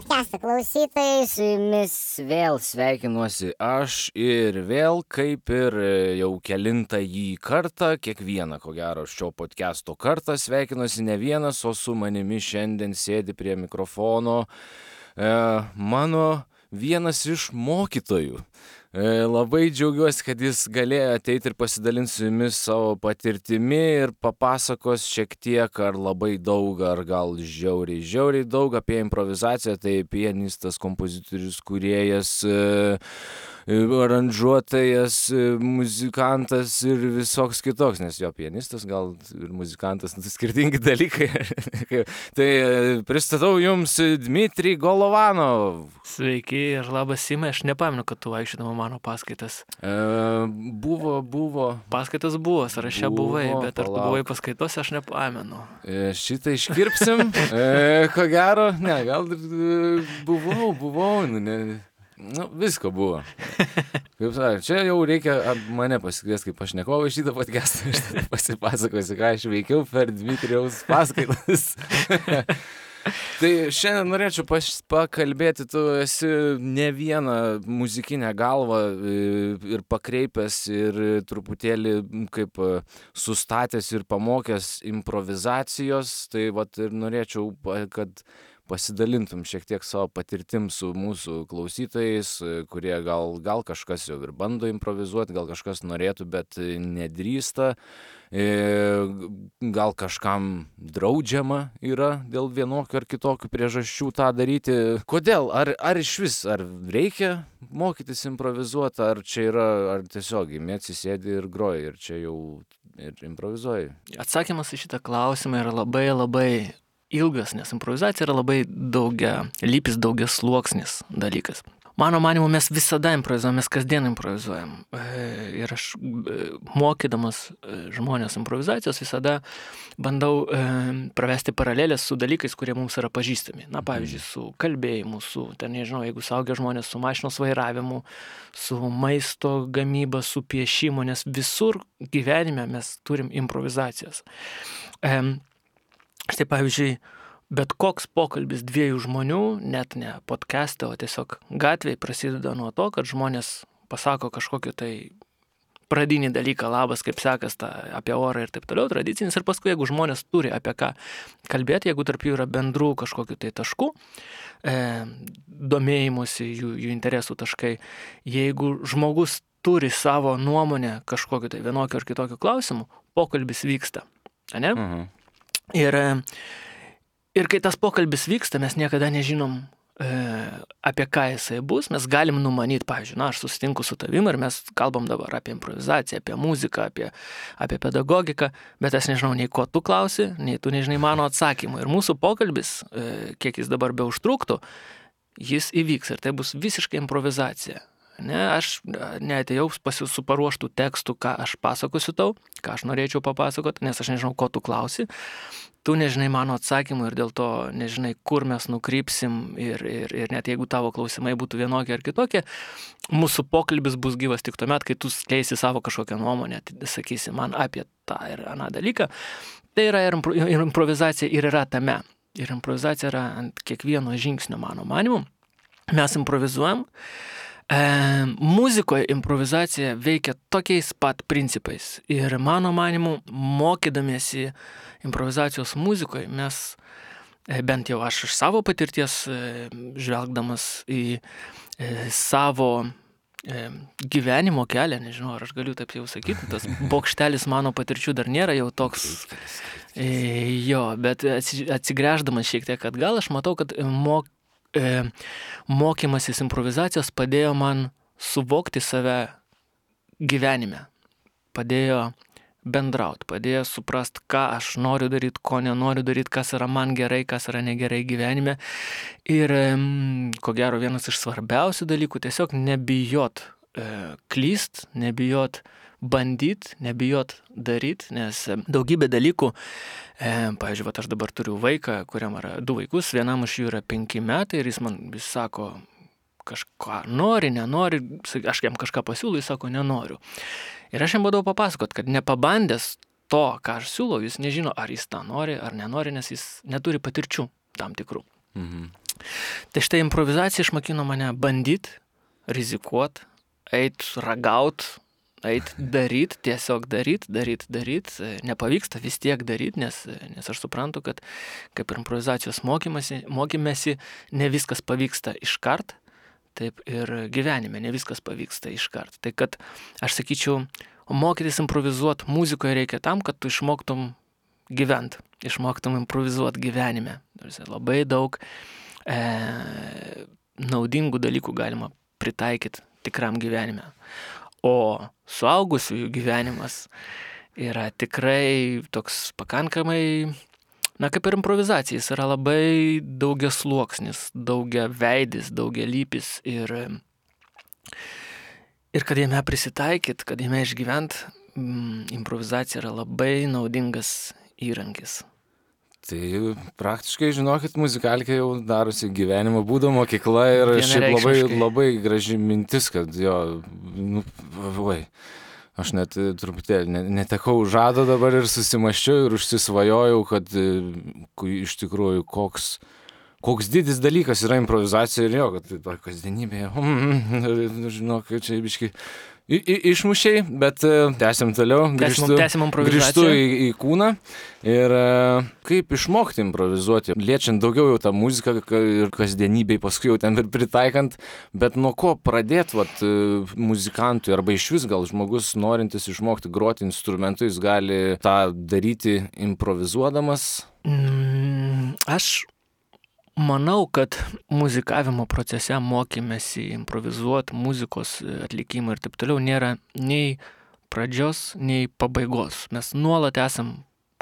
podcast'o klausytojai, su jumis vėl sveikinuosi aš ir vėl, kaip ir jau kelintąjį kartą, kiekvieną, ko gero, šio podcast'o kartą sveikinuosi ne vienas, o su manimi šiandien sėdi prie mikrofono mano vienas iš mokytojų. Labai džiaugiuosi, kad jis galėjo ateiti ir pasidalinti su jumis savo patirtimi ir papasakos šiek tiek ar labai daug, ar gal žiauriai daug apie improvizaciją. Tai pianistas, kompozitorius, kūrėjas, aranžuotojas, muzikantas ir visoks kitoks, nes jo pianistas gal ir muzikantas, skirtingi dalykai. Tai pristatau jums Dmitrij Golovanov. Sveiki ir labas, Simai, aš nepamenu, kad tu vaikščiodama mano paskaitas. Buvo. Paskaitas buvo, sąraše buvai, bet ar tu buvai paskaitose, aš nepamenu. Šitą iškirpsim, ko gero, ne, gal buvau, visko buvo. Kaip sakė, čia jau reikia mane pasikviesti kaip pašnekovą šitą podcastą, aš tada pasipasakosiu, ką aš veikiau per Dmitrijaus paskaitas. Tai šiandien norėčiau pakalbėti, tu esi ne vieną muzikinę galvą ir pakreipęs ir truputėlį kaip sustatęs ir pamokęs improvizacijos, tai vat ir norėčiau, kad pasidalintum šiek tiek savo patirtim su mūsų klausytojais, kurie gal kažkas jau ir bando improvizuoti, gal kažkas norėtų, bet nedrįsta. Gal kažkam draudžiama yra dėl vienokių ar kitokių priežasčių tą daryti. Kodėl? Ar išvis, ar reikia mokytis improvizuoti, ar čia yra, ar tiesiog atsisėdi ir groji ir čia jau ir improvizuoji? Atsakymas į šitą klausimą yra labai ilgas, nes improvizacija yra labai daugialypis, daugiasluoksnis dalykas. Mano manymu, mes visada improvizuojam, mes kasdien improvizuojam. Ir aš mokydamas žmonės improvizacijos visada bandau pravesti paralelės su dalykais, kurie mums yra pažįstami. Na, pavyzdžiui, su kalbėjimu, su, nežinau, jeigu suaugę žmonės, su mašinos vairavimu, su maisto gamyba, su piešimu, nes visur gyvenime mes turim improvizacijas. Štai, pavyzdžiui, bet koks pokalbis dviejų žmonių, net ne podcast'e, o tiesiog gatvėje prasideda nuo to, kad žmonės pasako kažkokį tai pradinį dalyką, labas, kaip sekas, apie orą ir taip toliau, tradicinis. Ir paskui, jeigu žmonės turi apie ką kalbėti, jeigu tarp jų yra bendrų kažkokių tai taškų, domėjimusi, jų interesų taškai, jeigu žmogus turi savo nuomonę kažkokiu tai vienokiu ar kitokiu klausimu, pokalbis vyksta. Ne? Ir kai tas pokalbis vyksta, mes niekada nežinom, apie ką jisai bus. Mes galim numanyti, pavyzdžiui, aš susitinku su tavim ir mes kalbam dabar apie improvizaciją, apie muziką, apie pedagogiką, bet aš nežinau nei ko tu klausi, nei tu nežinai mano atsakymų. Ir mūsų pokalbis, kiek jis dabar beužtruktų, jis įvyks ir tai bus visiškai improvizacija. Ne, aš neatėjau su paruoštų tekstų, ką aš pasakosiu tau, ką aš norėčiau papasakoti, nes aš nežinau, ko tu klausi. Tu nežinai mano atsakymų ir dėl to nežinai, kur mes nukrypsim ir net jeigu tavo klausimai būtų vienokie ar kitokie, mūsų pokalbis bus gyvas tik tuomet, kai tu skleisi savo kažkokią nuomonę, sakysi man apie tą ir aną dalyką. Tai yra ir improvizacija ir yra tame. Ir improvizacija yra ant kiekvieno žingsnio, mano manimu. Mes improvizuojam. Muzikoje improvizacija veikia tokiais pat principais ir mano manimu, mokydamiesi improvizacijos muzikoje, mes, bent jau aš iš savo patirties, žvelgdamas į savo gyvenimo kelią, nežinau, ar aš galiu taip jau sakyti, tas bokštelis mano patirčių dar nėra jau toks, bet atsigręždamas šiek tiek atgal, aš matau, kad mokymasis improvizacijos padėjo man suvokti save gyvenime, padėjo bendrauti, padėjo suprast, ką aš noriu daryti, ko nenoriu daryti, kas yra man gerai, kas yra negerai gyvenime. Ir ko gero vienas iš svarbiausių dalykų, tiesiog nebijot klyst, nebijot bandyt, nebijot daryt, nes daugybė dalykų, pavyzdžiui, aš dabar turiu vaiką, kuriam yra 2 vaikus, vienam iš jų yra 5 metai ir jis man vis sako, kažką nori, nenori, aš jam kažką pasiūlau, jis sako, nenoriu. Ir aš jam bandau papasakot, kad nepabandęs to, ką aš siūlau, jis nežino, ar jis tą nori, ar nenori, nes jis neturi patirčių tam tikrų. Tai štai improvizacija išmokino mane bandyti, rizikuoti, eit ragaut, eit daryt, tiesiog daryt. Nepavyksta vis tiek daryt, nes aš suprantu, kad kaip ir improvizacijos mokymėsi, ne viskas pavyksta iškart, taip ir gyvenime ne viskas pavyksta iškart. Tai kad aš sakyčiau, mokytis improvizuoti muzikoje reikia tam, kad tu išmoktum gyvent, išmoktum improvizuoti gyvenime. Labai daug naudingų dalykų galima pritaikyti tikram gyvenime. O suaugusiųjų gyvenimas yra tikrai toks pakankamai, kaip ir improvizacija, jis yra labai daugiasluoksnis, daugiaveidis, daugialypis ir kad jame prisitaikyt, kad jame išgyvent, improvizacija yra labai naudingas įrankis. Tai praktiškai, žinokit, muzikalkė jau darosi gyvenimo būdo mokykla ir šiaip labai graži mintis, kad aš net truputėlį netekau žado dabar ir susimaščiau ir užsisvajojau, kad iš tikrųjų koks didis dalykas yra improvizacija ir kad kasdienybėje, žinok, čia biškai išmušiai, bet tęsiam toliau, grįžtu į kūną ir kaip išmokti improvizuoti, liečiant daugiau jau tą muziką ir kasdienybėj, paskui jau ten ir pritaikant, bet nuo ko pradėti muzikantui arba išvis gal žmogus norintis išmokti groti instrumentu, jis gali tą daryti improvizuodamas? Aš manau, kad muzikavimo procese mokymėsi improvizuoti, muzikos atlikimą ir taip toliau nėra nei pradžios, nei pabaigos. Mes nuolat esam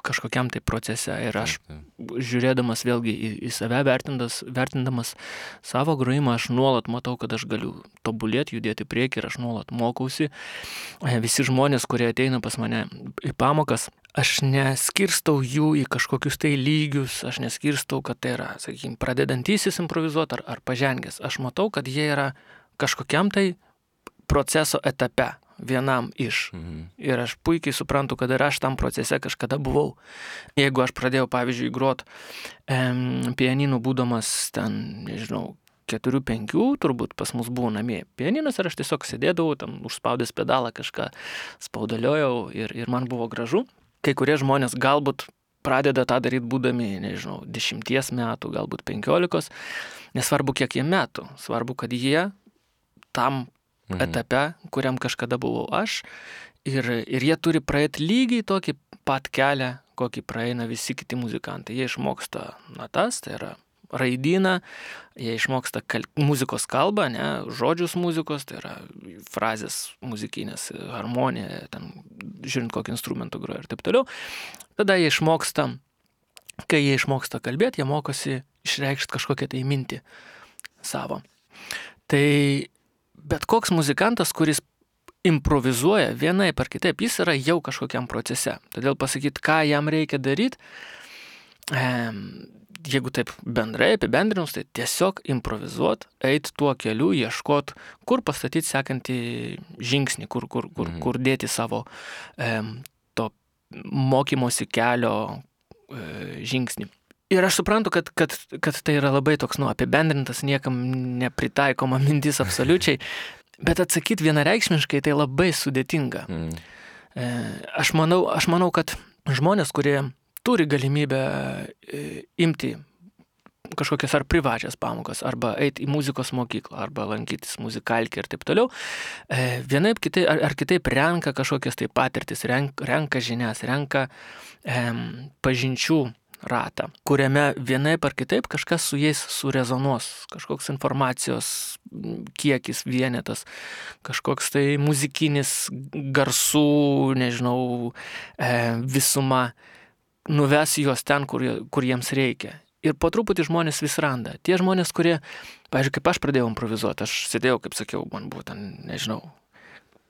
kažkokiam tai procese ir aš žiūrėdamas vėlgi į save, vertindamas savo grojimą, aš nuolat matau, kad aš galiu tobulėti, judėti priekį ir aš nuolat mokausi. Visi žmonės, kurie ateina pas mane į pamokas, aš neskirstau jų į kažkokius tai lygius, aš neskirstau, kad tai yra, sakykime, pradedantysis improvizuoti ar pažengęs. Aš matau, kad jie yra kažkokiam tai proceso etape, vienam iš. Ir aš puikiai suprantu, kad ir aš tam procese kažkada buvau. Jeigu aš pradėjau, pavyzdžiui, grot pianinu būdamas ten, nežinau, 4-5, turbūt pas mus buvo namie pianinas ir aš tiesiog sėdėdavau, tam užspaudęs pedalą kažką spaudaliojau ir man buvo gražu. Kai kurie žmonės galbūt pradeda tą daryti būdami, nežinau, 10 metų, galbūt 15, nesvarbu kiek jie metų, svarbu, kad jie tam etape, kuriam kažkada buvau aš, ir jie turi praeiti lygiai tokį pat kelią, kokį praeina visi kiti muzikantai. Jie išmoksta natas, tai yra raidyną, jie išmoksta muzikos kalbą, žodžius muzikos, tai yra frazės muzikinės, harmonija, ten, žiūrint kokį instrumentą groja ir taip toliau. Tada jie išmoksta, kai jie išmoksta kalbėti, jie mokosi išreikšti kažkokią tai mintį savo. Tai bet koks muzikantas, kuris improvizuoja vienaip ar kitaip, jis yra jau kažkokiam procese. Todėl pasakyti, ką jam reikia daryti, jeigu taip bendrai apibendrinus, tai tiesiog improvizuoti, eiti tuo keliu, ieškoti, kur pastatyti sekantį žingsnį, kur dėti savo to mokymosi kelio žingsnį. Ir aš suprantu, kad tai yra labai toks, apibendrintas, niekam nepritaikoma mintis absoliučiai, bet atsakyti vienareikšmiškai tai labai sudėtinga. Aš manau, kad žmonės, kurie turi galimybę imti kažkokias ar privačias pamokas, arba eiti į muzikos mokyklą, arba lankytis muzikalkę ir taip toliau, vienaip kitaip renka kažkokias tai patirtis, renka žinias, renka pažinčių ratą, kuriame vienaip ar kitaip kažkas su jais surezonuos, kažkoks informacijos kiekis, vienetas, kažkoks tai muzikinis garsų, nežinau, visuma, nuves juos ten, kur jiems reikia. Ir po truputį žmonės vis randa. Tie žmonės, kurie, pavyzdžiui, kaip aš pradėjau improvizuoti, aš sėdėjau, kaip sakiau, man buvo ten, nežinau,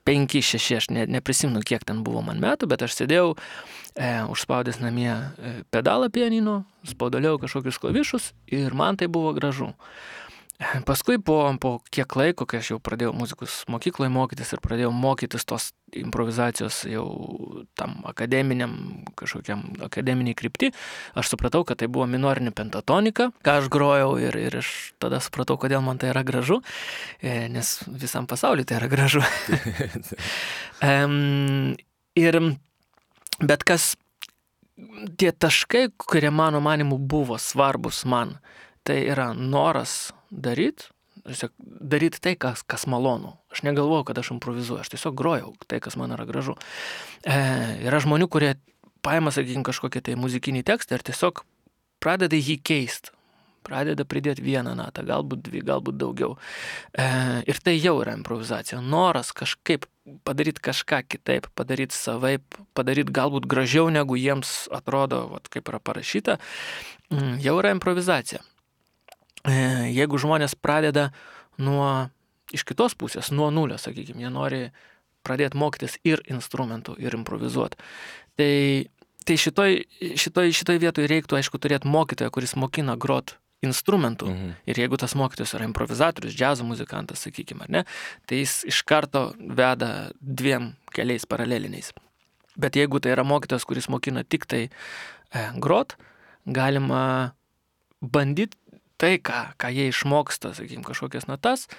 5-6, aš neprisimenu, kiek ten buvo man metų, bet aš sėdėjau, užspaudęs namie pedalą pianino, spaudaliau kažkokius klavišus ir man tai buvo gražu. Paskui po kiek laiko, kai aš jau pradėjau muzikos mokykloje mokytis ir pradėjau mokytis tos improvizacijos jau tam akademiniai krypti, aš supratau, kad tai buvo minorinė pentatonika, ką aš grojau ir aš tada supratau, kodėl man tai yra gražu, nes visam pasauliu tai yra gražu. Bet kas, tie taškai, kurie mano manimu buvo svarbus man, tai yra noras daryti tai, kas malonu. Aš negalvojau, kad aš improvizuoju, aš tiesiog grojau tai, kas man yra gražu. Yra žmonių, kurie paima, sakykime, kažkokį tai muzikinį tekstą ir tiesiog pradeda jį keisti. Pradeda pridėti vieną natą, galbūt dvi, galbūt daugiau. Ir tai jau yra improvizacija. Noras kažkaip padaryti kažką kitaip, padaryti savaip, padaryti galbūt gražiau, negu jiems atrodo, kaip yra parašyta, jau yra improvizacija. Jeigu žmonės pradeda iš kitos pusės, nuo nulio, sakykime, jie nori pradėti mokytis ir instrumentų, ir improvizuoti. Tai šitoj vietoj reiktų, aišku, turėti mokytoją, kuris mokina grot instrumentų. Ir jeigu tas mokytojas yra improvizatorius, džiazo muzikantas, sakykime, ar ne, tai jis iš karto veda 2 keliais paraleliniais. Bet jeigu tai yra mokytojas, kuris mokina tik tai grot, galima bandyti tai, ką jie išmoksta, sakykime, kažkokias natas,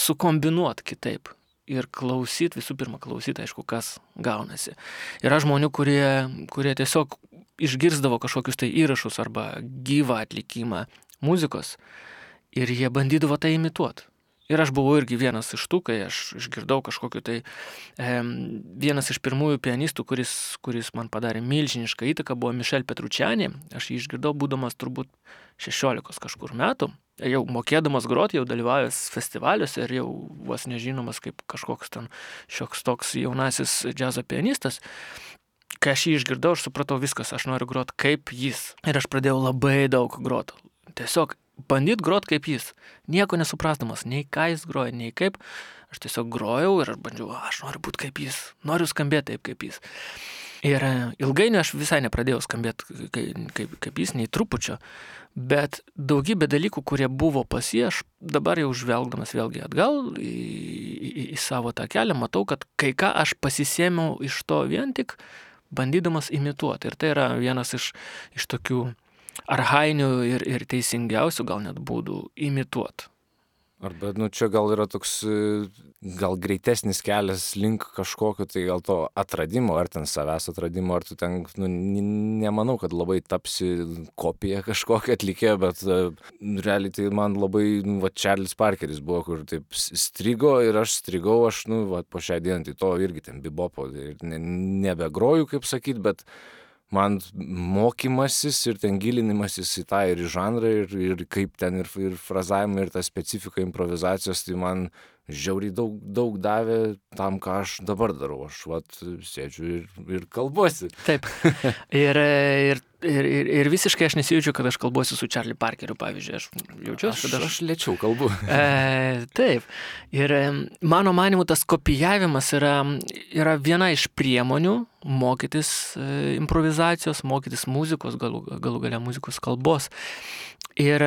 sukombinuoti kitaip. Ir visų pirma klausyti, aišku, kas gaunasi. Yra žmonių, kurie tiesiog išgirsdavo kažkokius tai įrašus arba gyvą atlikimą muzikos ir jie bandydavo tai imituoti. Ir aš buvau irgi vienas iš tų, kai aš išgirdau kažkokiu tai vienas iš pirmųjų pianistų, kuris man padarė milžinišką įtaką, buvo Michel Petrucciani. Aš jį išgirdau būdamas turbūt 16 kažkur metų. Jau mokėdamas groti, jau dalyvavęs festivaliuose ir jau vos nežinomas kaip kažkoks ten šioks toks jaunasis džiazo pianistas. Kai aš jį išgirdau, aš supratau viskas, aš noriu groti kaip jis. Ir aš pradėjau labai daug groti. Tiesiog bandyt grot kaip jis, nieko nesuprasdamas, nei ką jis groja, nei kaip. Aš tiesiog grojau ir aš bandžiau, aš noriu būti kaip jis, noriu skambėti taip kaip jis. Ir ilgainiui aš visai nepradėjau skambėti kaip jis, nei trupučio, bet daugybė dalykų, kurie buvo pas jį, aš dabar jau žvelgdamas vėlgi atgal į savo tą kelią, matau, kad kai ką aš pasisėmiau iš to vien tik bandydamas imituoti. Ir tai yra vienas iš tokių archainių ir teisingiausių gal net būdų imituoti. Arba, čia gal yra toks, gal greitesnis kelias link kažkokio, tai gal to atradimo, ar ten savęs atradimo, ar tu ten, nemanau, kad labai tapsi kopija kažkokio atlikėjo, bet realiai tai man labai, Charles Parkeris buvo, kur taip strigo ir aš strigau, po šią dieną, tai to irgi ten bibopo, nebegroju, kaip sakyt, bet man mokymasis ir ten gilinimasis į tą ir į žanrą ir kaip ten ir frazavimą ir tą specifiką improvizacijos, tai man žiauriai daug davė tam, ką aš dabar darau. Aš sėdžiu ir kalbuosi. Taip. Ir visiškai aš nesijaučiu, kad aš kalbuosi su Charlie Parkeriu, pavyzdžiui. Aš jaučiuosi, kad aš lėčiau kalbu. Taip. Ir mano manimu, tas kopijavimas yra viena iš priemonių mokytis improvizacijos, mokytis muzikos, galų gale muzikos kalbos. Ir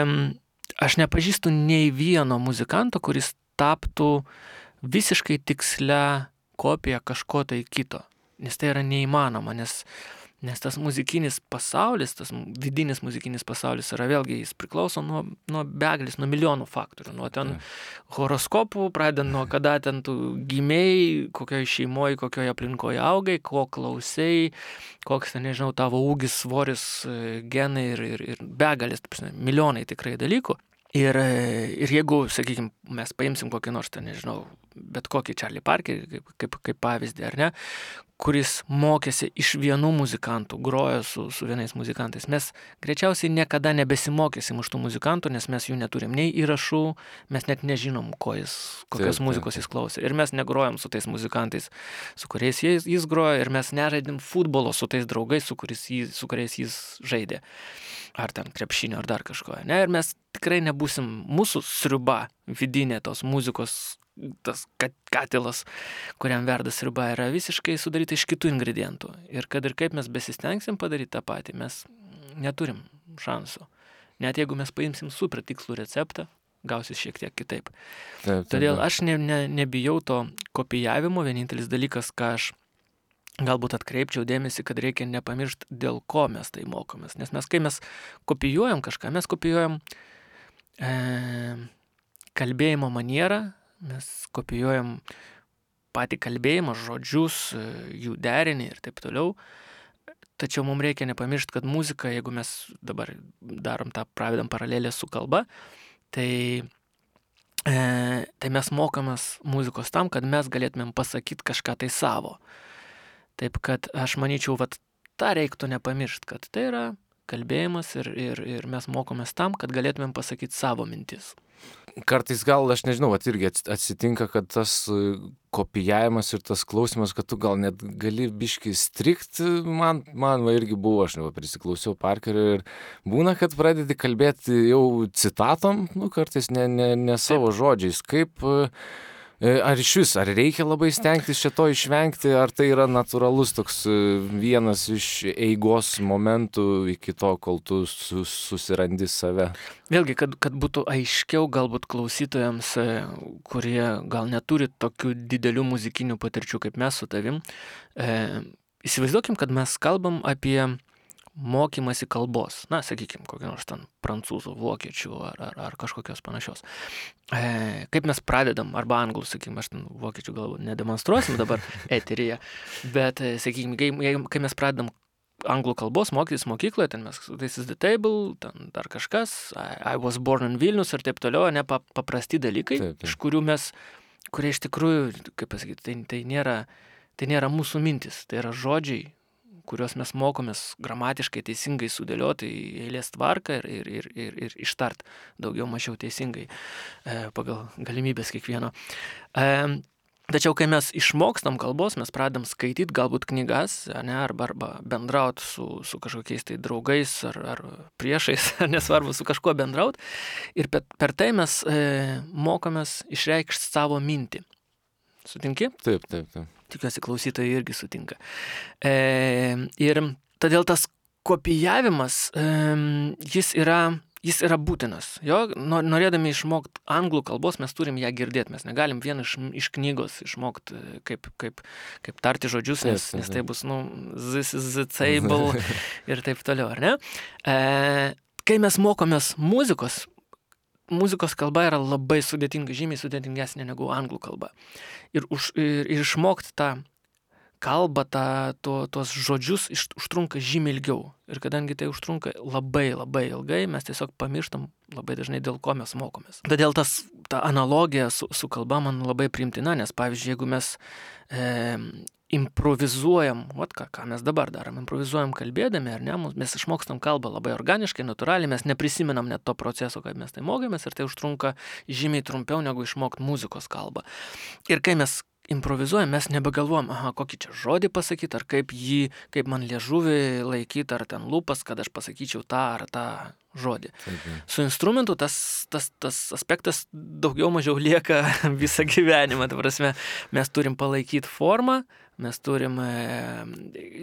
aš nepažįstu nei vieno muzikanto, kuris taptų visiškai tikslia kopija kažko tai kito. Nes tai yra neįmanoma, nes tas muzikinis pasaulis, tas vidinis muzikinis pasaulis yra vėlgi, jis priklauso nuo begalės, nuo milijonų faktorių. Nuo ten horoskopų, pradedant nuo kada ten tu gimėjai, kokioje šeimoje, kokioje aplinkoje augai, ko klausai, koks ten, nežinau, tavo ūgis, svoris, genai ir begalės, milijonai tikrai dalykų. Ir jeigu, sakykime, mes paimsim kokį nors, nežinau, bet kokį Charlie Parkerį kaip pavyzdį, ar ne, kuris mokėsi iš vienų muzikantų, grojo su vienais muzikantais. Mes greičiausiai niekada nebesimokysim iš tų muzikantų, nes mes jų neturim nei įrašų, mes net nežinom, kokios muzikos jis klausė. Ir mes negrojam su tais muzikantais, su kuriais jis grojo, ir mes nežaidėm futbolo su tais draugais, su kuriais jis žaidė. Ar ten krepšinio, ar dar kažko. Ne? Ir mes tikrai nebūsim, mūsų sriuba vidinė tos muzikos, tas katilas, kuriam verda sriuba, yra visiškai sudaryta iš kitų ingredientų. Ir kad ir kaip mes besistengsim padaryti tą patį, mes neturim šansų. Net jeigu mes paimsim super tikslų receptą, gausis šiek tiek kitaip. Taip, Todėl aš nebijau to kopijavimo, vienintelis dalykas, ką aš galbūt atkreipčiau dėmesį, kad reikia nepamiršti, dėl ko mes tai mokomės. Nes kai mes kopijuojam kažką, mes kopijuojam kalbėjimo manierą, mes kopijuojam patį kalbėjimą, žodžius, jų derinį ir taip toliau. Tačiau mums reikia nepamiršti, kad muzika, jeigu mes dabar pravedam paralelę su kalba, tai mes mokomės muzikos tam, kad mes galėtumėm pasakyti kažką tai savo. Taip kad aš manyčiau, tą reiktų nepamiršti, kad tai yra kalbėjimas ir mes mokomės tam, kad galėtumėm pasakyti savo mintis. Kartais gal, aš nežinau, irgi atsitinka, kad tas kopijavimas ir tas klausimas, kad tu gal net gali biškį strikt, man irgi buvo, aš prisiklausiau Parkerio ir būna, kad pradedi kalbėti jau citatom, kartais ne savo žodžiais, kaip... Ar ar reikia labai stengtis šito išvengti, ar tai yra natūralus toks vienas iš eigos momentų iki to, kol tu susirandi save? Vėlgi, kad būtų aiškiau galbūt klausytojams, kurie gal neturi tokių didelių muzikinių patirčių kaip mes su tavim, įsivaizduokim, kad mes kalbam apie mokymasi kalbos, sakykime, kokią nors ten prancūzų, vokiečių ar kažkokios panašios. Kaip mes pradedam, arba anglų, sakykime, aš ten vokiečių galbūt nedemonstruosim dabar eteryje, bet, sakykime, kai mes pradedam anglų kalbos mokytis mokykloje, ten mes, this is the table, ten dar kažkas, I was born in Vilnius ir taip toliau, paprasti dalykai, taip. Iš kurie iš tikrųjų, kaip pasakyti, tai nėra mūsų mintis, tai yra žodžiai, kuriuos mes mokomės gramatiškai teisingai sudėlioti į eilės tvarką ir ištart daugiau mažiau teisingai pagal galimybės kiekvieno. Tačiau, kai mes išmokstam kalbos, mes pradedam skaityti galbūt knygas, arba bendrauti su kažkokiais tai draugais ar priešais, nesvarbu, su kažkuo bendrauti. Ir per tai mes mokomės išreikšti savo mintį. Sutinki? Taip. Tikiuosi, klausytojai irgi sutinka. Ir todėl tas kopijavimas, jis yra būtinas. Norėdami išmokti anglų kalbos, mes turim ją girdėti. Mes negalim vien iš knygos išmokti, kaip tarti žodžius, nes tai bus, this is the table ir taip toliau, ar ne? Kai mes mokomės muzikos kalba yra labai sudėtinga, žymiai sudėtingesnė negu anglų kalba. Ir išmokti tą kalbą, tuos žodžius užtrunka žymiai ilgiau. Ir kadangi tai užtrunka labai labai ilgai, mes tiesiog pamirštam labai dažnai, dėl ko mes mokomės. Todėl ta analogija su kalba man labai priimtina, nes pavyzdžiui, jeigu mes improvizuojam, ką mes dabar darom, improvizuojam kalbėdami, ar ne, mes išmokstam kalbą labai organiškai, natūraliai, mes neprisimenam net to proceso, kaip mes tai mokėmės, ir tai užtrunka žymiai trumpiau negu išmokti muzikos kalbą. Ir kai mes improvizuojam, mes nebegalvojam, kokį čia žodį pasakyti, ar kaip man liežuvį laikyti, ar ten lūpas, kad aš pasakyčiau tą ar tą žodį. Su instrumentu tas aspektas daugiau mažiau lieka visą gyvenimą. Ta prasme, mes turim palaikyti formą, mes turim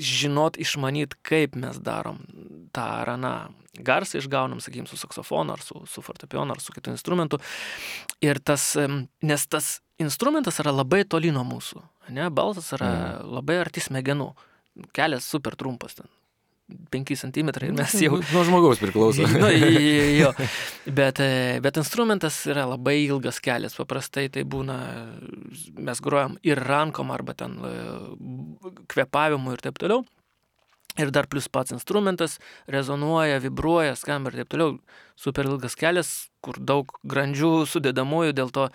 žinot, išmanyt, kaip mes darom tą ar aną garsą išgaunam, sakykim, su saksofonu, ar su fortepijonu, ar su kitu instrumentu. Ir nes tas instrumentas yra labai toli nuo mūsų, ne? Balsas yra labai arti smegenų. Kelias super trumpas ten. 5 centimetrai ir mes jau... Nuo žmogaus priklauso. Jo. Bet instrumentas yra labai ilgas kelias. Paprastai tai būna, mes grojam ir rankom, arba ten kvėpavimu ir taip toliau. Ir dar plus pats instrumentas rezonuoja, vibruoja, skamba ir taip toliau. Super ilgas kelias, kur daug grandžių sudedamųjų, dėl to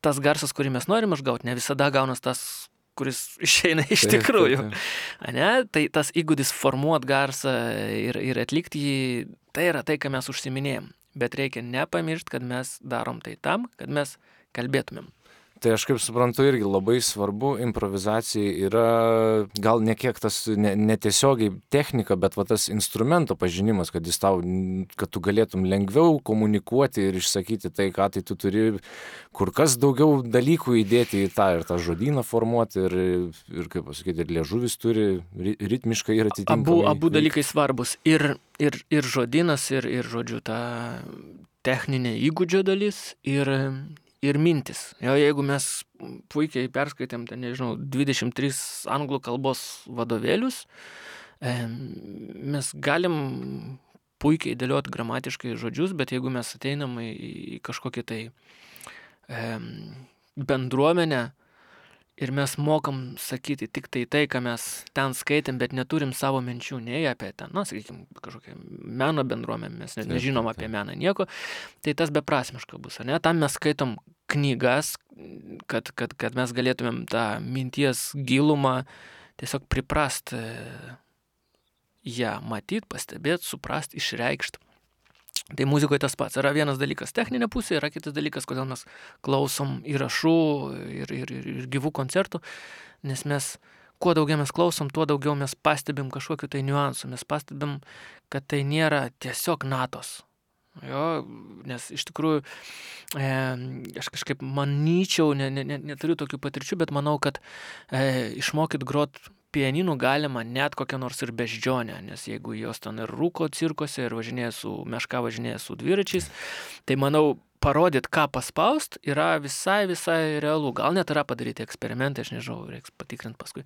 tas garsas, kurį mes norim išgauti, ne visada gaunas tas, kuris išeina iš tikrųjų. Ne? Tai tas įgūdis formuot garsą ir atlikti jį, tai yra tai, ką mes užsiminėjom. Bet reikia nepamiršti, kad mes darom tai tam, kad mes kalbėtumėm. Tai aš kaip suprantu irgi labai svarbu improvizacijai yra gal ne kiek tas netiesiogiai technika, bet tas instrumento pažinimas, kad tu galėtum lengviau komunikuoti ir išsakyti tai, ką tai tu turi kur kas daugiau dalykų įdėti į tą ir tą žodyną formuoti ir kaip pasakyti, ir liežuvis turi ritmiškai ir atitinkamai. Abu dalykai svarbus. Ir žodynas, ir žodžiu, techninė įgūdžio dalis ir mintis. Jo, jeigu mes puikiai perskaitėm, ten, nežinau, 23 anglų kalbos vadovėlius, mes galim puikiai dėlioti gramatiškai žodžius, bet jeigu mes ateinam į kažkokį tai bendruomenę ir mes mokam sakyti tik tai, ką mes ten skaitėm, bet neturim savo minčių nei apie ten, sakykime, kažkokią meno bendruomenę, mes net nežinom apie meną nieko, tai tas beprasmiška bus, ne? Tam mes skaitom knygas, kad mes galėtumėm tą minties gilumą tiesiog priprast ją matyt, pastebėt, suprast, išreikšt. Tai muzikoje tas pats. Yra vienas dalykas techninė pusė, yra kitas dalykas, kodėl mes klausom įrašų ir gyvų koncertų, nes mes, kuo daugiau mes klausom, tuo daugiau mes pastebim kažkokiu tai niuansų, mes pastebim, kad tai nėra tiesiog natos. Jo, nes iš tikrųjų, aš kažkaip manyčiau, neturiu tokių patirčių, bet manau, kad išmokyt grot pianinų galima net kokią nors ir beždžionę, nes jeigu jos ten ir rūko cirkose ir važinėja su dviračiais, tai manau, parodyt, ką paspaust, yra visai realu. Gal net yra padaryti eksperimentai, aš nežinau, reiks patikrinti paskui.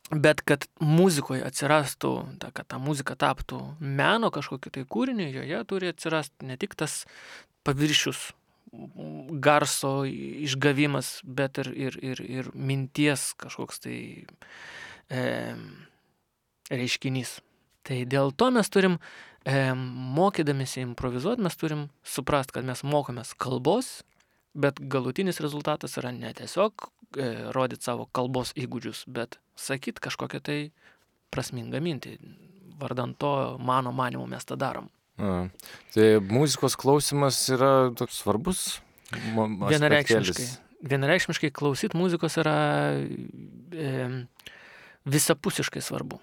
Bet kad muzikoje atsirastų, kad ta muzika taptų meno kažkokiu tai kūriniu, joje turi atsirasti ne tik tas paviršius garso išgavimas, bet ir minties kažkoks tai reiškinys. Tai dėl to mes turim, mokydamėsi improvizuoti, mes turim suprast, kad mes mokomės kalbos, bet galutinis rezultatas yra ne tiesiog rodyti savo kalbos įgūdžius, bet sakyt kažkokią tai prasmingą mintį. Vardant to, mano manymu, mes tą darom. Tai muzikos klausimas yra toks svarbus aspektėlis. Vienareikšmiškai klausyt muzikos yra visapusiškai svarbu.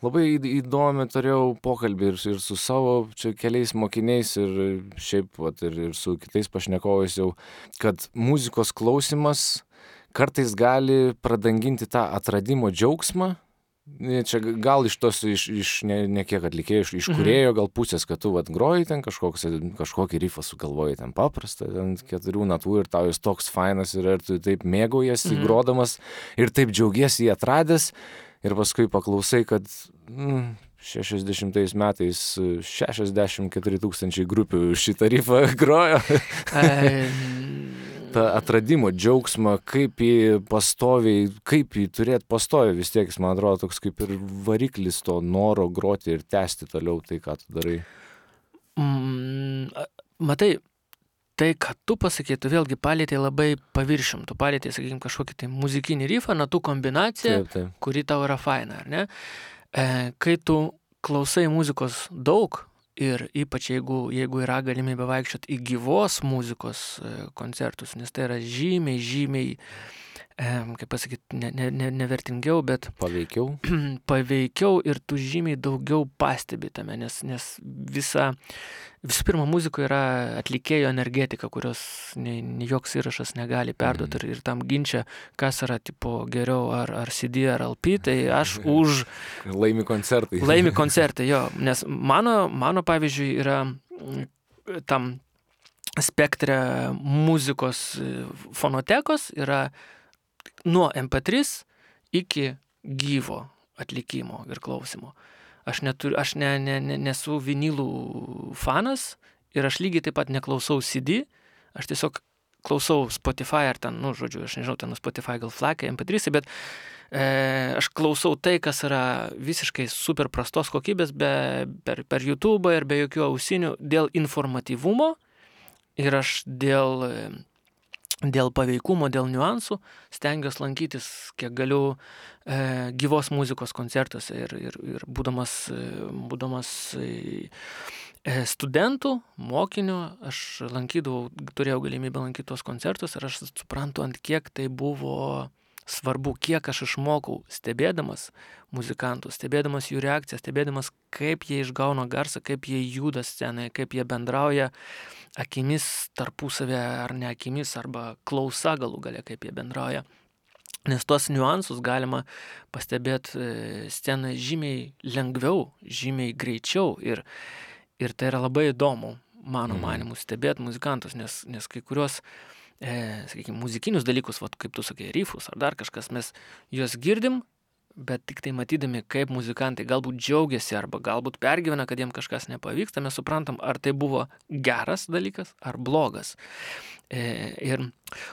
Labai įdomi turėjau pokalbį ir su savo čia keliais mokiniais ir šiaip ir su kitais pašnekovais jau, kad muzikos klausimas kartais gali pradanginti tą atradimo džiaugsmą. Čia gal iš tos, ne kiek atlikėjų, iš kūrėjo gal pusės, kad tu groji ten kažkokį rifą sugalvoji ten paprastą, ten 4 natų ir tau jis toks fainas ir tu taip mėgaujasi grodamas ir taip džiaugiesi jį atradęs ir paskui paklausai, kad 60 metais 64 000 grupių šitą rifą grojo. Ta atradimo džiaugsmą, kaip jį turėti pastoviai, vis tiek jis, man atrodo, toks kaip ir variklis to noro groti ir tęsti toliau tai, ką tu darai. Matai, tai, ką tu pasakei, tu vėlgi palėtei labai paviršium, tu palėtei, sakykime, kažkokį tai muzikinį rifą, natų kombinaciją, taip. Kuri tau yra faina, ar ne? Kai tu klausai muzikos daug, ir ypač jeigu yra galimybė vaikščioti į gyvos muzikos koncertus, nes tai yra žymiai, kaip pasakyti, nevertingiau, bet paveikiau ir tu žymiai daugiau pastebi tame, nes visų pirma, muzikoje yra atlikėjo energetika, kurios joks įrašas negali perduoti ir tam ginčia, kas yra tipo geriau ar CD ar LP, tai aš už... Laimi koncertai. Laimi koncertai, jo, nes mano pavyzdžiui yra tam spektre muzikos fonotekos yra nuo MP3 iki gyvo atlikimo ir klausimo. Aš nesu vinilų fanas ir aš lygiai taip pat neklausau CD, aš tiesiog klausau Spotify ar ten, aš nežinau, ten Spotify gal FLAC, MP3, bet aš klausau tai, kas yra visiškai super prastos kokybės per YouTube ir be jokių ausinių dėl informatyvumo ir aš dėl paveikumo, dėl niuansų stengiuosi lankytis, kiek galiu gyvos muzikos koncertuose ir būdamas studentų, mokinių, aš turėjau galimybę lankyti tos koncertus ir aš suprantu, ant kiek tai buvo svarbu, kiek aš išmokau stebėdamas muzikantus, stebėdamas jų reakciją, stebėdamas, kaip jie išgauna garsą, kaip jie juda scenoje, kaip jie bendrauja akimis tarpusavę ar ne akimis, arba klausa galų gale, kaip jie bendrauja. Nes tuos niuansus galima pastebėti scenoje žymiai lengviau, žymiai greičiau ir tai yra labai įdomu. mano manimu, stebėti muzikantus, nes kai kurios, sakykime, muzikinius dalykus, vat, kaip tu sakai, rifus ar dar kažkas, mes juos girdim, bet tik tai matydami, kaip muzikantai galbūt džiaugiasi arba galbūt pergyvena, kad jiem kažkas nepavyksta, mes suprantam, ar tai buvo geras dalykas ar blogas.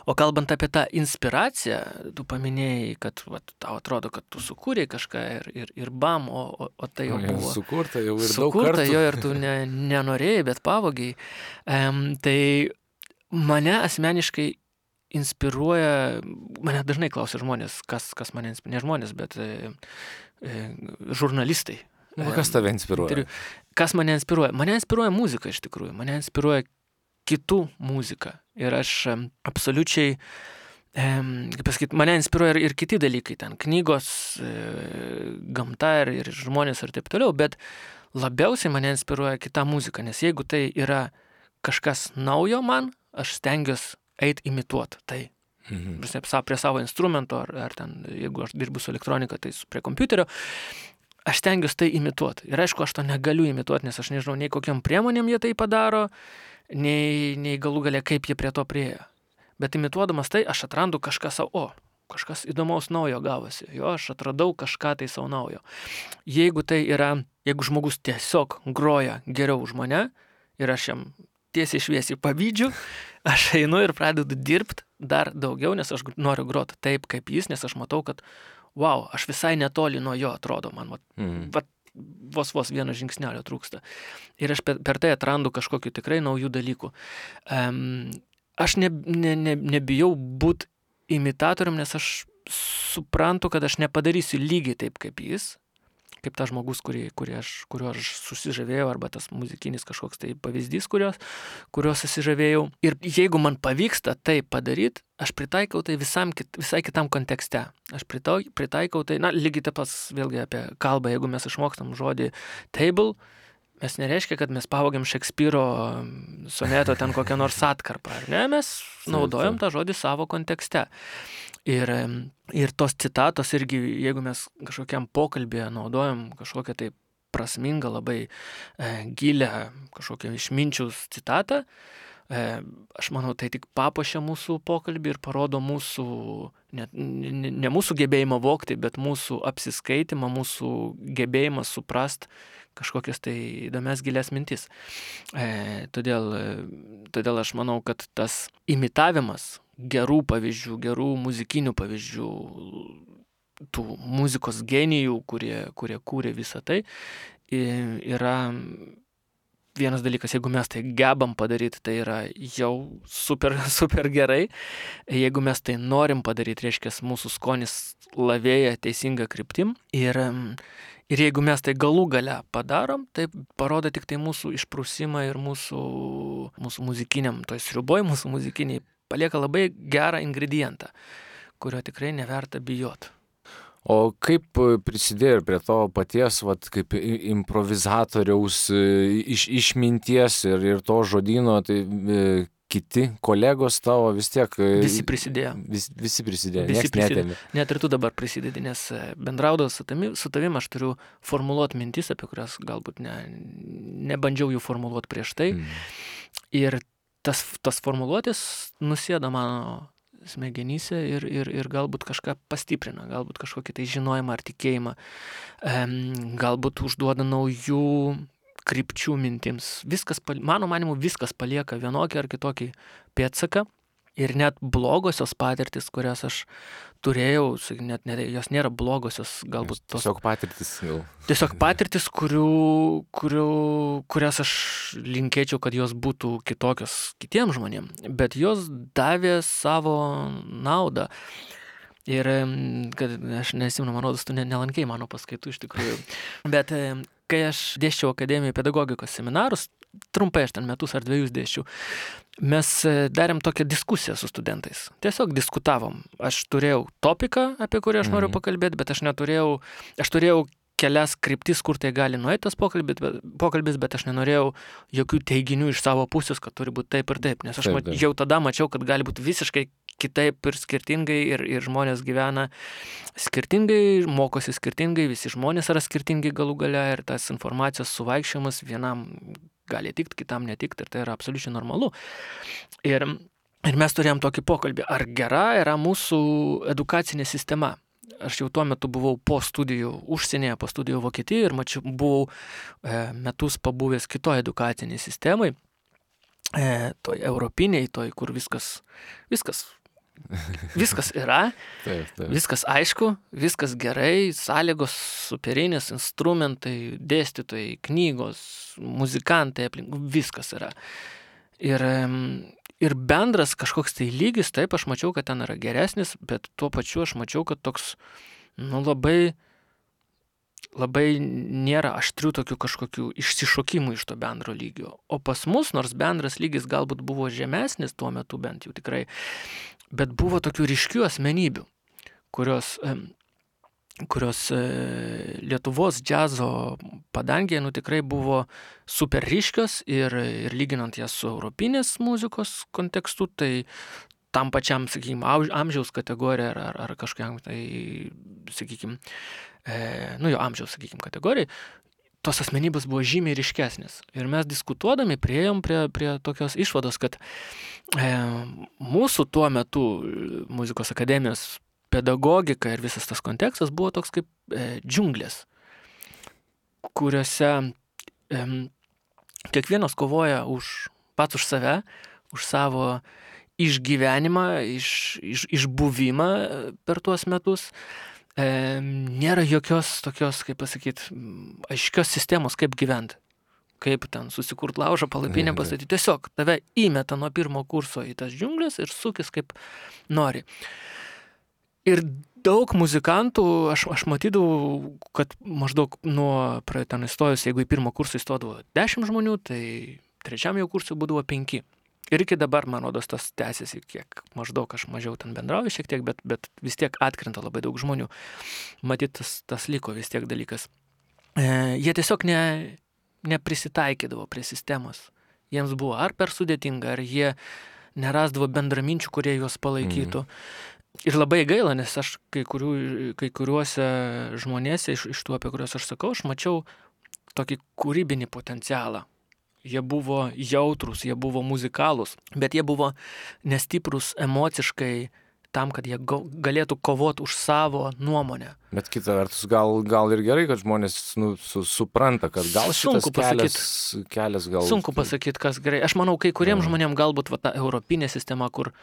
O kalbant apie tą inspiraciją, tu paminėjai, kad vat, tau atrodo, kad tu sukūrei kažką ir bam, o tai jau buvo sukurta jau ir daug sukurta, kartų. jo ir tu nenorėjai, bet pavogiai. Tai mane asmeniškai inspiruoja, mane dažnai klausia žmonės, kas mane inspiruoja, ne žmonės, bet žurnalistai. Kas tave inspiruoja? Kas mane inspiruoja? Mane inspiruoja muzika iš tikrųjų, mane inspiruoja kitų muzika. Ir aš absoliučiai, kaip pasakyti, mane inspiruoja ir kiti dalykai, ten knygos, gamta ir žmonės ir taip toliau, bet labiausiai mane inspiruoja kita muzika, nes jeigu tai yra kažkas naujo man, aš stengiuosi eit imituot tai. Prie savo instrumento, ar ten, jeigu aš dirbu su elektronika, tai prie kompiuterio, aš stengiuosi tai imituot. Ir aišku, aš to negaliu imituot, nes aš nežinau, nei kokiam priemonėm jie tai padaro, nei galų galia, kaip jie prie to priejo. Bet imituodamas tai, aš atrandu kažką savo, kažkas įdomaus naujo gavosi. Jo, aš atradau kažką tai savo naujo. Jeigu žmogus tiesiog groja geriau už mane ir aš jam tiesiai šviesiai pavydžiu, aš einu ir pradedu dirbti dar daugiau, nes aš noriu groti taip kaip jis, nes aš matau, kad wow, aš visai netoli nuo jo atrodo, man vos vieno žingsnelio trūksta. Ir aš per tai atrandu kažkokių tikrai naujų dalykų. Aš nebijau būti imitatorium, nes aš suprantu, kad aš nepadarysiu lygiai taip kaip jis, kaip tas žmogus, kuriuo aš susižavėjau, arba tas muzikinis kažkoks tai pavyzdys, kuriuo susižavėjau. Ir jeigu man pavyksta tai padaryti, aš pritaikau tai visai kitam kontekste. Aš pritaikau tai, lygiai taip pat vėlgi apie kalbą, jeigu mes išmokstam žodį table, mes nereiškia, kad mes pavogiam Šekspyro soneto ten kokią nors atkarpą, ar ne? Mes naudojam tą žodį savo kontekste. Ir tos citatos irgi, jeigu mes kažkokiam pokalbėje naudojam kažkokią tai prasmingą, labai gilę kažkokią išminčiaus citatą, aš manau, tai tik papuošia mūsų pokalbį ir parodo mūsų, ne mūsų gebėjimą vokti, bet mūsų apsiskaitimą, mūsų gebėjimą suprast kažkokias tai įdomias gilias mintis. Todėl aš manau, kad tas imitavimas gerų pavyzdžių, gerų muzikinių pavyzdžių, tų muzikos genijų, kurie kūrė visą tai, yra vienas dalykas. Jeigu mes tai gebam padaryti, tai yra jau super, super gerai. Jeigu mes tai norim padaryti, reiškia, mūsų skonis lavėja teisinga kryptim. Ir jeigu mes tai galų gale padarom, tai parodo tik tai mūsų išprusimą ir mūsų muzikiniam, toj sriuboj mūsų muzikiniai palieka labai gerą ingredientą, kurio tikrai neverta bijot. O kaip prisidėjo prie to paties, kaip improvizatoriaus išminties ir to žodyno, tai kiti kolegos tavo vis tiek... Visi prisidėjo. Visi prisidėjo, nieks netėmė. Net ir tu dabar prisidedi, nes bendraudavau su tavim, aš turiu formuluoti mintis, apie kurias galbūt nebandžiau jų formuluoti prieš tai. Ir tas formuluotės nusėda mano smegenyse ir galbūt kažką pastiprina, galbūt kažkokį tai žinojimą ar tikėjimą, galbūt užduoda naujų krypčių mintims. Mano manimu, viskas palieka vienokį ar kitokį pėdsaką. Ir net blogosios patirtis, kurias aš turėjau, jos nėra blogosios, galbūt tos... Tiesiog patirtis gal. Tiesiog patirtis, kurias aš linkėčiau, kad jos būtų kitokios kitiems žmonėms, bet jos davė savo naudą. Ir kad aš nesimenu, man rodos, tu nelankei mano paskaitų iš tikrųjų. Bet kai aš dėsčiau akademijoje pedagogikos seminarus, trumpai aš ten metus ar 2 dėsčiau, mes darėm tokią diskusiją su studentais. Tiesiog diskutavom. Aš turėjau topiką, apie kurį aš noriu pakalbėti, bet aš turėjau kelias kryptis, kur tai gali nueiti tas pokalbis, bet aš nenorėjau jokių teiginių iš savo pusės, kad turi būti taip ir taip, nes aš jau tada mačiau, kad gali būti visiškai kitaip ir skirtingai ir žmonės gyvena skirtingai, mokosi skirtingai, visi žmonės yra skirtingi galų gale ir tas informacijos suvaikščiojimas vienam gali tikti, kitam netikti ir tai yra absoliučiai normalu. Ir mes turėjom tokį pokalbį, ar gera yra mūsų edukacinė sistema. Aš jau tuo metu buvau po studijų užsienyje, po studijų Vokietijoje ir buvau metus pabuvęs kitoje edukacinėje sistemai, toj europiniai, toj, kur viskas yra, Taip. viskas aišku, viskas gerai, sąlygos superinės, instrumentai, dėstytojai, knygos, muzikantai, viskas yra. Ir bendras kažkoks tai lygis, taip, aš mačiau, kad ten yra geresnis, bet tuo pačiu aš mačiau, kad toks, labai nėra aštrių tokių kažkokių išsišokimų iš to bendro lygio. O pas mus, nors bendras lygis galbūt buvo žemesnis tuo metu bent jau tikrai, bet buvo tokių ryškių asmenybių, kurios Lietuvos džiazo padangėje tikrai buvo super ryškios ir lyginant jas su europinės muzikos kontekstu, tai tam pačiam, sakykime, amžiaus kategorija ar kažkokiam, tai, sakykime, jo amžiaus, sakykime, kategorijai, tos asmenybės buvo žymiai ryškesnės. Ir mes diskutuodami priėjom prie tokios išvados, kad mūsų tuo metu muzikos akademijos pedagogika ir visas tas kontekstas buvo toks kaip džiunglės, kuriuose kiekvienas kovoja pats už save, už savo išgyvenimą, išbuvimą per tuos metus. Nėra jokios tokios, kaip pasakyti, aiškios sistemos, kaip gyventi. Kaip ten susikurt laužą, palapinę pastatyti. Tiesiog tave įmeta nuo pirmo kurso į tas džiunglės ir sukis kaip nori. Ir daug muzikantų, aš matydavau, kad maždaug nuo ten įstojus, jeigu į pirmą kursą įstodavo 10 žmonių, tai trečiam jau kursui būdavo 5. Ir iki dabar, man rodos, tas tęsiasi kiek, maždaug aš mažiau ten bendrauju šiek tiek, bet vis tiek atkrenta labai daug žmonių. Matyt, tas liko vis tiek dalykas. Jie tiesiog neprisitaikydavo prie sistemos. Jiems buvo ar per sudėtinga, ar jie nerasdavo bendraminčių, kurie juos palaikytų. Ir labai gaila, nes aš kai kuriuose žmonėse iš tų, apie kuriuos aš sakau, aš mačiau tokį kūrybinį potencialą. Jie buvo jautrus, jie buvo muzikalūs, bet jie buvo nestiprus emociškai tam, kad jie galėtų kovoti už savo nuomonę. Bet kita vertus, gal ir gerai, kad žmonės supranta, kad gal šitas kelias gal... Sunku pasakyti, kas gerai. Aš manau, kai kuriems žmonėms galbūt ta europinė sistema, kur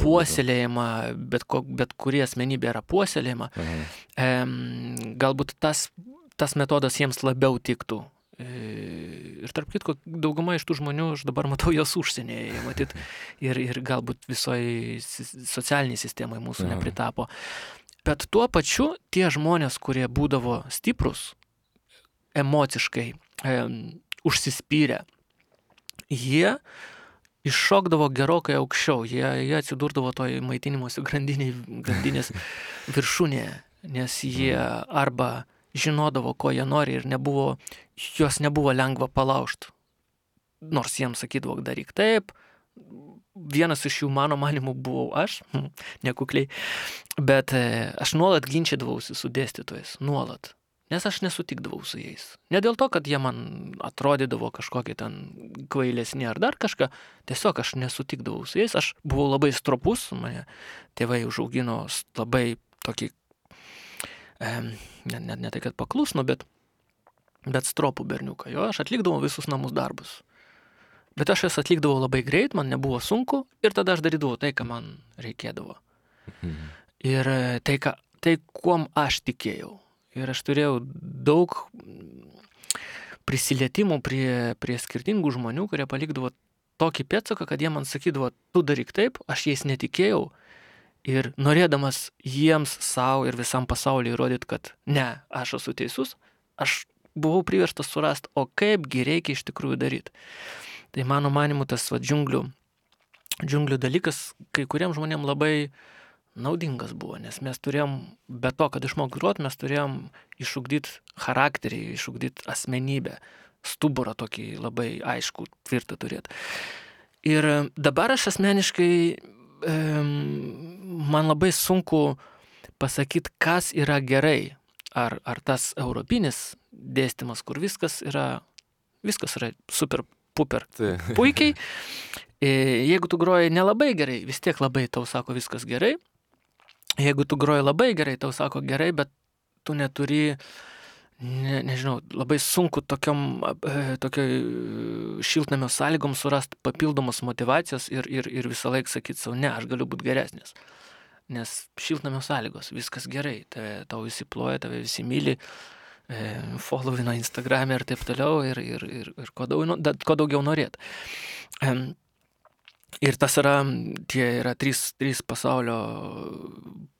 puoselėjama, bet kurie asmenybė yra puoselėjama, galbūt tas metodas jiems labiau tiktų. Ir tarp kitko, dauguma iš tų žmonių, aš dabar matau jos užsienyje, matyt, ir galbūt visoje socialiniai sistemai mūsų nepritapo. Bet tuo pačiu tie žmonės, kurie būdavo stiprus, emociškai užsispyrę, jie iššokdavo gerokai aukščiau, jie atsidurdavo toj maitinimosi grandinės viršūnėje, nes jie arba žinodavo, ko jie nori ir juos nebuvo lengva palaužti. Nors jiems sakydavo, daryk taip. Vienas iš jų, mano manimu, buvau aš, nekukliai. Bet aš nuolat ginčydavausi su dėstytojais, nuolat. Nes aš nesutikdavau su jais. Ne dėl to, kad jie man atrodydavo kažkokie ten kvailesni ar dar kažką. Tiesiog aš nesutikdavau su jais. Aš buvau labai stropus, mane tėvai užaugino labai tokį ne tai, kad paklusno, bet stropų berniuką. Jo, aš atlikdavau visus namus darbus. Bet aš jas atlikdavau labai greit, man nebuvo sunku ir tada aš darydavau tai, ką man reikėdavo. Ir tai kuom aš tikėjau. Ir aš turėjau daug prisilietimų prie skirtingų žmonių, kurie palikdavo tokį pėdsaką, kad jie man sakydavo, tu daryk taip, aš jais netikėjau. Ir norėdamas jiems savo ir visam pasauliu įrodyti, kad ne, aš esu teisus, aš buvau priverstas surasti, o kaipgi reikia iš tikrųjų daryti. Tai mano manimu tas džiunglių dalykas kai kuriems žmonėms labai naudingas buvo, nes mes turėjom, be to, kad išmok grot, mes turėjom išugdyti charakterį, išugdyti asmenybę, stuburą tokį labai aišku, tvirtą turėti. Ir dabar aš asmeniškai man labai sunku pasakyti, kas yra gerai. Ar tas europinis dėstymas, kur viskas yra super puper Tai. puikiai. Jeigu tu groji nelabai gerai, vis tiek labai tau sako viskas gerai. Jeigu tu groji labai gerai, tau sako gerai, bet tu neturi, nežinau, labai sunku tokioj šiltnamio sąlygom surasti papildomos motyvacijos ir visą laiką sakyti savo, ne, aš galiu būti geresnis. Nes šiltnamio sąlygos, viskas gerai, tau visi ploja, tave visi myli, followino Instagram'e ir taip toliau ir ko daugiau norėt. Ir tas yra trys pasaulio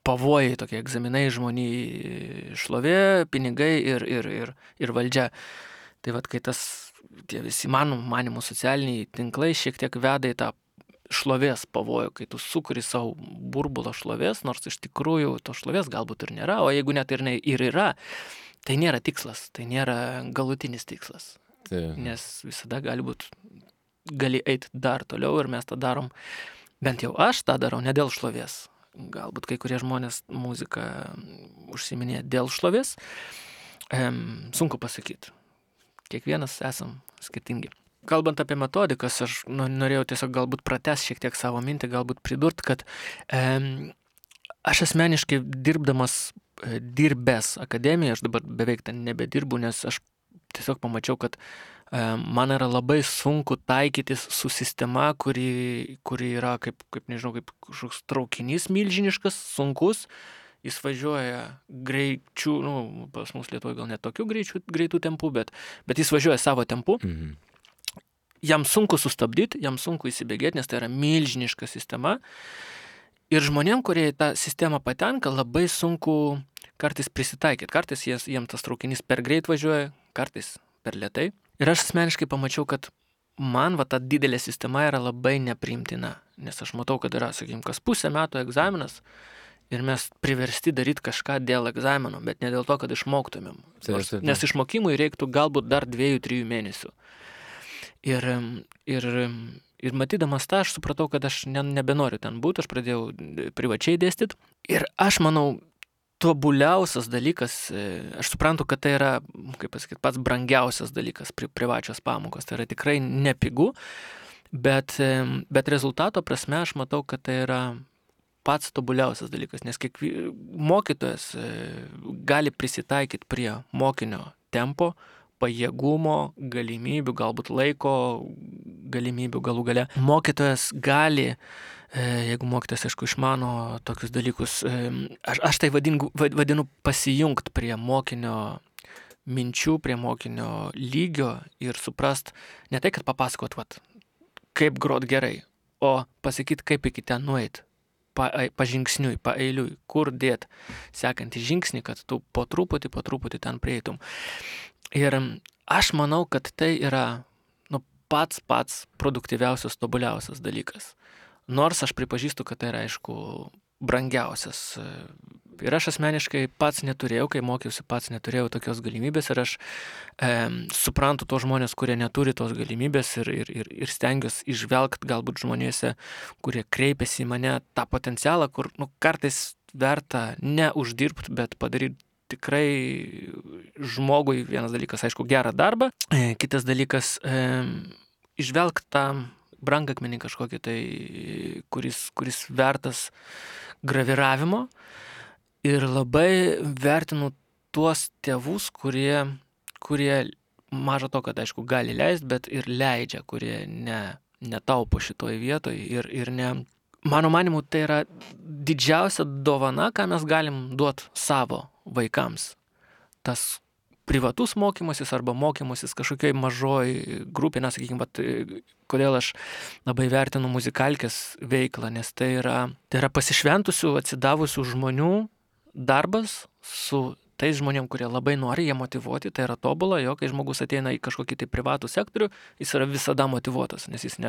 pavojai, tokie egzaminai žmoniai, šlovė, pinigai ir valdžia. Tai vat, kai tie visi manimų socialiniai tinklai šiek tiek veda į tą šlovės pavojų, kai tu sukuri savo burbulą šlovės, nors iš tikrųjų to šlovės galbūt ir nėra, o jeigu net ir yra, tai nėra tikslas, tai nėra galutinis tikslas. Tai. Nes visada gali eiti dar toliau ir mes tą darom, bent jau aš tą darau ne dėl šlovės. Galbūt kai kurie žmonės muziką užsiminė dėl šlovės, sunku pasakyti. Kiekvienas esam skirtingi. Kalbant apie metodikas, aš norėjau tiesiog galbūt pratęs šiek tiek savo mintį, galbūt pridurt, kad aš asmeniškai dirbęs akademijoje, aš dabar beveik ten nebedirbu, nes aš tiesiog pamačiau, kad man yra labai sunku taikytis su sistema, kuri yra kaip nežinau, kaip kažkoks traukinys milžiniškas, sunkus. Jis važiuoja greičiu, pas mus Lietuvoje gal net tokių greitų tempų, bet jis važiuoja savo tempu. Mhm. Jam sunku sustabdyti, jam sunku įsibėgėti, nes tai yra milžiniška sistema. Ir žmonėm, kurie į tą sistemą patenka, labai sunku kartais prisitaikyti. Kartais jiems tas traukinys per greit važiuoja, kartais per lėtai. Ir aš asmeniškai pamačiau, kad man ta didelė sistema yra labai nepriimtina. Nes aš matau, kad yra, sakykime, kas pusę metų egzaminas ir mes priversti daryti kažką dėl egzamino, bet ne dėl to, kad išmoktumėm. Nes išmokimui reiktų galbūt dar 2-3 mėnesių. Ir matydamas tą, aš supratau, kad aš nebenoriu ten būti, aš pradėjau privačiai dėstyti. Ir aš manau, tobuliausias dalykas, aš suprantu, kad tai yra, kaip pasakyti, pats brangiausias dalykas privačios pamokos. Tai yra tikrai nepigu, bet rezultato prasme aš matau, kad tai yra pats tobuliausias dalykas, nes mokytojas gali prisitaikyti prie mokinio tempo, pajėgumo, galimybių, galbūt laiko galimybių galų gale. Mokytojas gali, jeigu mokytojas, aišku, išmano tokius dalykus, aš tai vadinu pasijungt prie mokinio minčių, prie mokinio lygio ir suprast, ne tai, kad papasakot, kaip grot gerai, o pasakyti, kaip iki ten nueit. Pažingsniui, paeiliui, kur dėt sekantį žingsnį, kad tu po truputį ten prieitum. Ir aš manau, kad tai yra pats produktyviausias, tobuliausias dalykas. Nors aš pripažįstu, kad tai yra, aišku, brangiausias. Ir aš asmeniškai pats neturėjau, kai mokiausi, pats neturėjau tokios galimybės ir aš suprantu tos žmonės, kurie neturi tos galimybės ir stengiuosi išvelgti galbūt žmonėse, kurie kreipiasi į mane tą potencialą, kur kartais verta ne uždirbti, bet padaryti tikrai žmogui, vienas dalykas, aišku, gerą darbą, kitas dalykas išvelgti tą brangakmenį kažkokį tai, kuris vertas graviravimo. Ir labai vertinu tuos tėvus, kurie maža to, kad, aišku, gali leisti, bet ir leidžia, kurie netaupo šitoj vietoj ir ne. Mano manimu, tai yra didžiausia dovana, ką mes galim duoti savo vaikams. Tas privatus mokymasis arba mokymasis kažkokioj mažoj grupė, sakykime, kodėl aš labai vertinu muzikalkės veiklą, nes tai yra pasišventusių, atsidavusių žmonių darbas su tais žmonėm, kurie labai nori, jie motyvuoti, tai yra tobula, jo, kai žmogus ateina į kažkokį tai privatų sektorių, jis yra visada motyvuotas, nes jis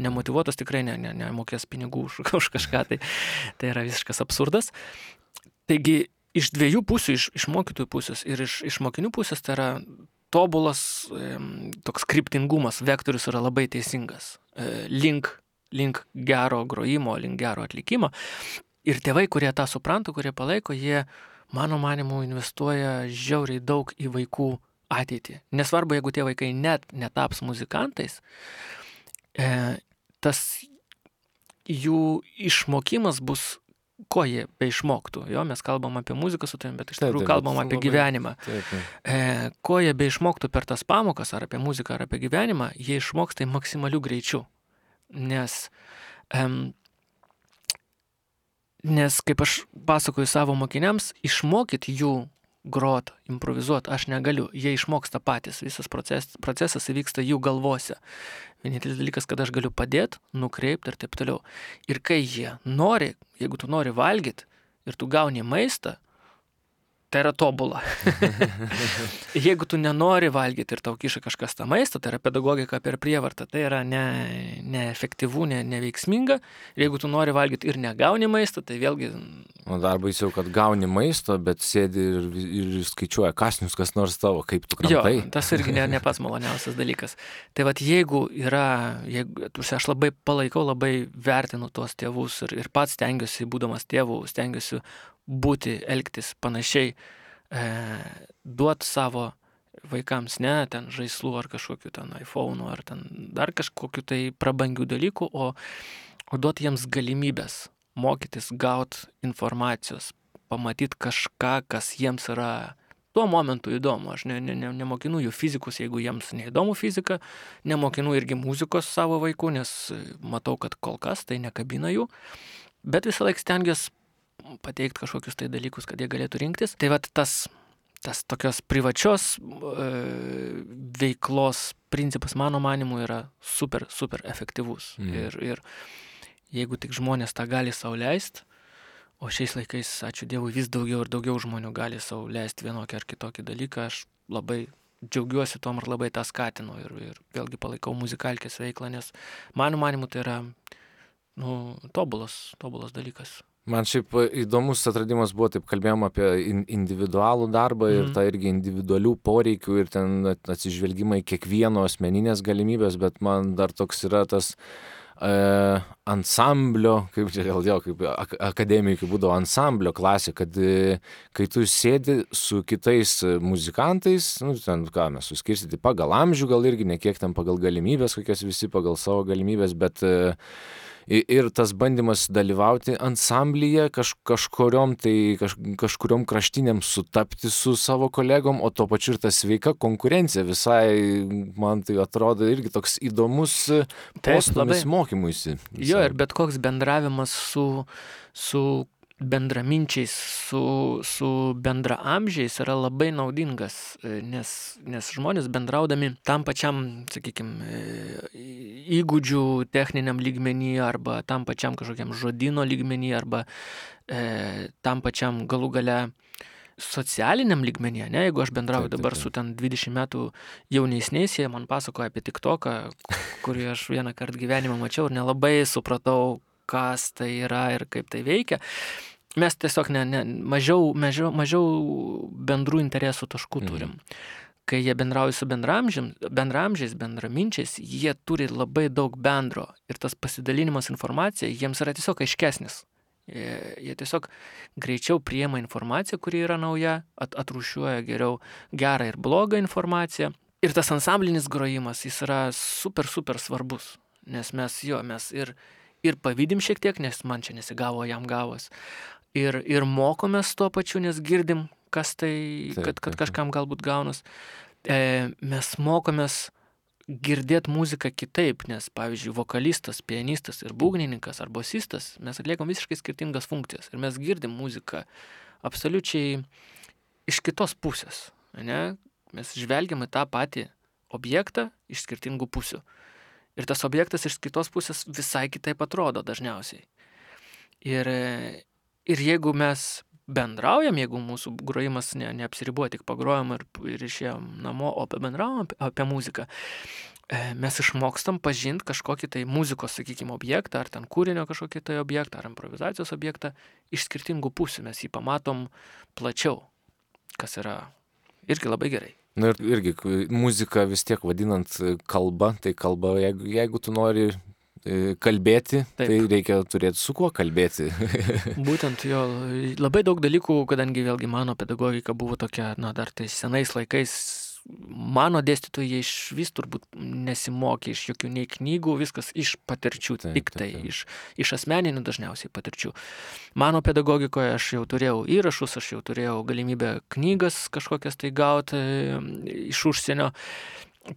nemotyvuotas tikrai nemokės pinigų už kažką, tai yra visiškas absurdas. Taigi, iš dviejų pusių, iš mokytojų pusės ir iš mokinių pusės, tai yra tobulas toks kryptingumas, vektorius yra labai teisingas, link gero grojimo, link gero atlikimo. Ir tėvai, kurie tą supranta, kurie palaiko, jie, mano manimu, investuoja žiauriai daug į vaikų ateitį. Nesvarbu, jeigu tie vaikai net netaps muzikantais, tas jų išmokimas bus, ko jie beišmoktų. Jo, mes kalbam apie muziką su tavim, bet iš tikrųjų kalbam apie gyvenimą. Ko jie beišmoktų per tas pamokas, ar apie muziką, ar apie gyvenimą, jie išmoks tai maksimaliu greičiu. Nes kaip aš pasakoju savo mokiniams, išmokyt jų grot, improvizuot aš negaliu. Jie išmoksta patys. Visas procesas įvyksta jų galvose. Vienintelis dalykas, kad aš galiu padėti, nukreipti ir taip toliau. Ir kai jie nori, jeigu tu nori valgyti ir tu gauni maistą, tai yra tobula. Jeigu tu nenori valgyti ir tau kiša kažkas tą maistą, tai yra pedagogika per prievartą, tai yra neefektyvu, neveiksminga. Ir jeigu tu nori valgyti ir negauni maistą, tai vėlgi... O dar baisiau, kad gauni maisto, bet sėdi ir skaičiuoja kasnius, kas nors tavo, kaip tu kramtai. Jo, tas irgi ne pats maloniausias dalykas. Tai vat jeigu aš labai palaikau, labai vertinu tuos tėvus ir pats stengiuosi, būdamas tėvų, stengiuosi būti, elgtis panašiai, duoti savo vaikams ne ten žaislų ar kažkokių ten iPhone'ų ar ten dar kažkokių tai prabangių dalykų, o duoti jiems galimybės mokytis, gauti informacijos, pamatyti kažką, kas jiems yra tuo momentu įdomu. Aš nemokinu jų fizikus, jeigu jiems neįdomu fizika, nemokinu irgi muzikos savo vaikų, nes matau, kad kol kas tai nekabina jų, bet visą laiką stengiuosi pateikti kažkokius tai dalykus, kad jie galėtų rinktis. Tai vat tas tokios privačios veiklos principas, mano manimu, yra super, super efektyvus. Ir jeigu tik žmonės tą gali sau leisti, o šiais laikais, ačiū Dievui, vis daugiau ir daugiau žmonių gali sau leisti vienokį ar kitokį dalyką, aš labai džiaugiuosi tom ir labai tą skatinu ir vėlgi palaikau muzikalkės veiklą, nes mano manimu tai yra tobulas dalykas. Man šiaip įdomus atradimas buvo, taip kalbėjom apie individualų darbą ir tą irgi individualių poreikių ir ten atsižvelgimą į kiekvieno asmeninės galimybės, bet man dar toks yra tas ansamblio, kaip akademikai būdavo ansamblio klasė, kad kai tu sėdi su kitais muzikantais, ten ką mes suskirstyti pagal amžių, gal irgi ne kiek ten pagal galimybės, kokias visi pagal savo galimybės, bet ir tas bandymas dalyvauti ansamblyje kažkuriom kraštiniam sutapti su savo kolegom, o tuo pačiu ir ta sveika konkurencija visai, man tai atrodo irgi toks įdomus postūmis mokymuisi. Jo, ir bet koks bendravimas su bendraminčiais, su bendraamžiais yra labai naudingas, nes žmonės bendraudami tam pačiam, sakykime, įgūdžių techniniam lygmenį arba tam pačiam kažkokiam žodyno lygmenį arba tam pačiam galų gale socialiniam lygmenyje, ne? Jeigu aš bendrauju dabar su ten 20 metų jaunesniais, jie man pasakoja apie TikToką, kurį aš vieną kartą gyvenimą mačiau ir nelabai supratau, kas tai yra ir kaip tai veikia. Mes tiesiog mažiau bendrų interesų taškų turim. Kai jie bendrauja su bendraamžiais, bendraminčiais, jie turi labai daug bendro ir tas pasidalinimas informacija jiems yra tiesiog aiškesnis. Jie tiesiog greičiau priima informaciją, kuri yra nauja, atrūšiuoja geriau gerą ir blogą informaciją. Ir tas ansamblinis grojimas, jis yra super, super svarbus, nes mes ir pavydim šiek tiek, nes man čia nesigavo, jam gavos. Ir mokomės tuo pačiu, nes girdim, kas tai, kad kažkam galbūt gaunas. Mes mokomės girdėti muziką kitaip, nes, pavyzdžiui, vokalistas, pianistas ir būgnininkas ar bosistas, mes atliekam visiškai skirtingas funkcijas. Ir mes girdim muziką absoliučiai iš kitos pusės. Ne? Mes žvelgiam į tą patį objektą iš skirtingų pusių. Ir tas objektas iš kitos pusės visai kitaip atrodo dažniausiai. Ir jeigu mes bendraujam, jeigu mūsų grojimas neapsiribuoja, tik pagrojam ir išėjom namo, o bendraujam apie muziką, mes išmokstam pažinti kažkokį tai muzikos, sakykime, objektą, ar ten kūrinio kažkokį tai objektą, ar improvizacijos objektą iš skirtingų pusių. Mes jį pamatom plačiau, kas yra irgi labai gerai. Na ir irgi muzika vis tiek vadinant kalba, tai kalba, jeigu tu nori kalbėti, tai reikia turėti su kuo kalbėti. Būtent jo, labai daug dalykų, kadangi vėlgi mano pedagogika buvo tokia, dar tais senais laikais mano dėstytojai jie išvis turbūt nesimokė iš jokių nei knygų, viskas iš patirčių, tik tai, iš asmeninių dažniausiai patirčių. Mano pedagogikoje aš jau turėjau įrašus, aš jau turėjau galimybę knygas kažkokias tai gauti iš užsienio,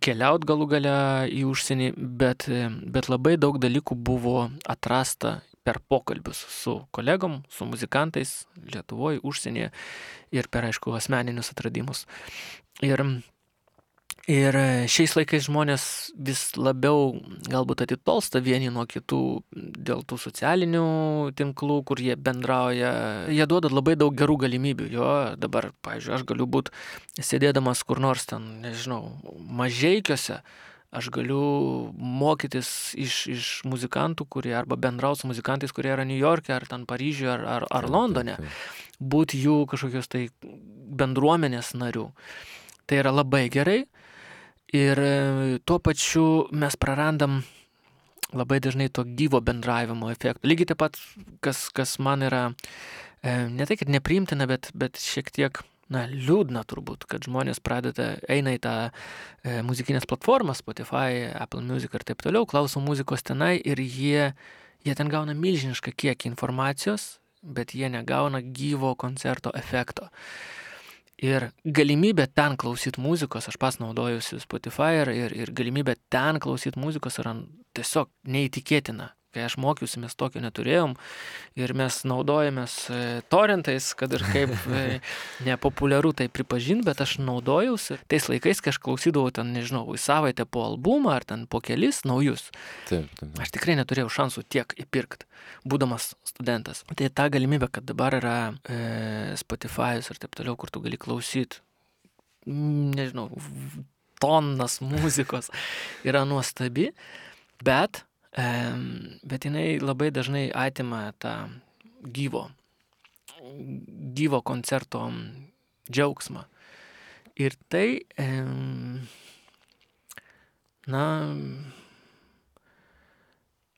keliaut galų gale į užsienį, bet labai daug dalykų buvo atrasta per pokalbius su kolegom, su muzikantais Lietuvoje, užsienyje ir per, aišku, asmeninius atradimus. Ir šiais laikais žmonės vis labiau galbūt atitolsta vieni nuo kitų dėl tų socialinių tinklų, kur jie bendrauja. Jie duoda labai daug gerų galimybių. Jo, dabar, pavyzdžiui, aš galiu būti sėdėdamas kur nors ten, nežinau, Mažeikiuose, aš galiu mokytis iš muzikantų, kurie arba bendrauti su muzikantais, kurie yra New York'e, ar ten Paryžiuje, ar Londone, būti jų kažkokios tai bendruomenės narių. Tai yra labai gerai ir tuo pačiu mes prarandam labai dažnai to gyvo bendravimo efektą. Lygiai taip pat, kas man yra ne tai, kad nepriimtina, bet šiek tiek liūdna turbūt, kad žmonės eina į tą muzikinės platformas, Spotify, Apple Music ir taip toliau, klauso muzikos tenai ir jie ten gauna milžinišką kiekį informacijos, bet jie negauna gyvo koncerto efekto. Ir galimybė ten klausyti muzikos, aš pas naudojusi Spotify ir galimybė ten klausyti muzikos yra tiesiog neįtikėtina. Kai aš mokiausi, mes tokio neturėjom ir mes naudojamės torrentais, kad ir kaip nepopuliaru tai pripažinti, bet aš naudojausi tais laikais, kai aš klausydavau ten, nežinau, į savaitę po albumą ar ten po kelis naujus. Taip. Aš tikrai neturėjau šansų tiek įpirkti, būdamas studentas. Tai ta galimybė, kad dabar yra Spotify'us ir taip toliau, kur tu gali klausyti, nežinau, tonnas muzikos, yra nuostabi, bet jinai labai dažnai atima tą gyvo koncerto džiaugsmą. Ir tai,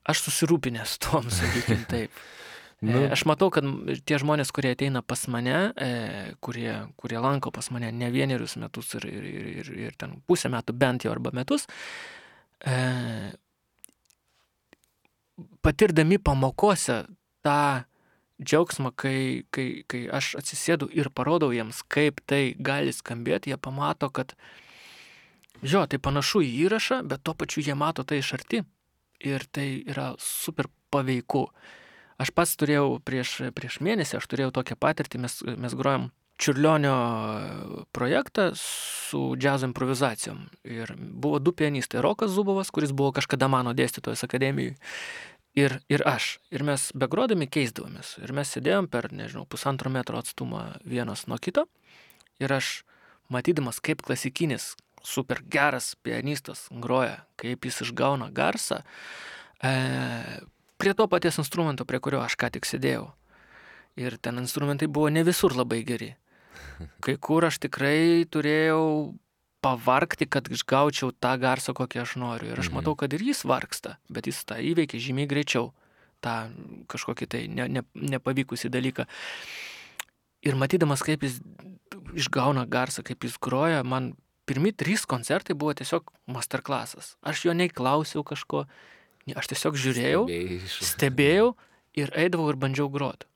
aš susirūpinęs tom, sakykim taip. Aš matau, kad tie žmonės, kurie ateina pas mane, kurie lanko pas mane ne vienerius metus ir ten pusę metų bent jau arba metus, patirdami pamokose tą džiaugsmą, kai aš atsisėdu ir parodau jiems, kaip tai gali skambėti, jie pamato, kad tai panašu į įrašą, bet tuo pačiu jie mato tai iš arti ir tai yra super paveiku. Aš pats turėjau prieš mėnesį, aš turėjau tokią patirtį, mes grojom Čiurlionio projektą su džiazo improvizacijom. Ir buvo du pianistai, Rokas Zubovas, kuris buvo kažkada mano dėstytojas akademijai, ir aš. Ir mes begrodami keisdavomės. Ir mes sėdėjom per, nežinau, 1,5 metro atstumą vienas nuo kito. Ir aš, matydamas, kaip klasikinis, super geras pianistas groja, kaip jis išgauna garsą, prie to paties instrumento, prie kurio aš ką tik sėdėjau. Ir ten instrumentai buvo ne visur labai geri. Kai kur aš tikrai turėjau pavargti, kad išgaučiau tą garsą, kokį aš noriu. Ir aš matau, kad ir jis vargsta, bet jis tą įveikia žymiai greičiau, tą kažkokį tai nepavykusį dalyką. Ir matydamas, kaip jis išgauna garsą, kaip jis groja, man pirmi 3 koncertai buvo tiesiog masterclassas. Aš jo nei klausiau kažko, aš tiesiog žiūrėjau, stebėjau ir eidavau ir bandžiau groti.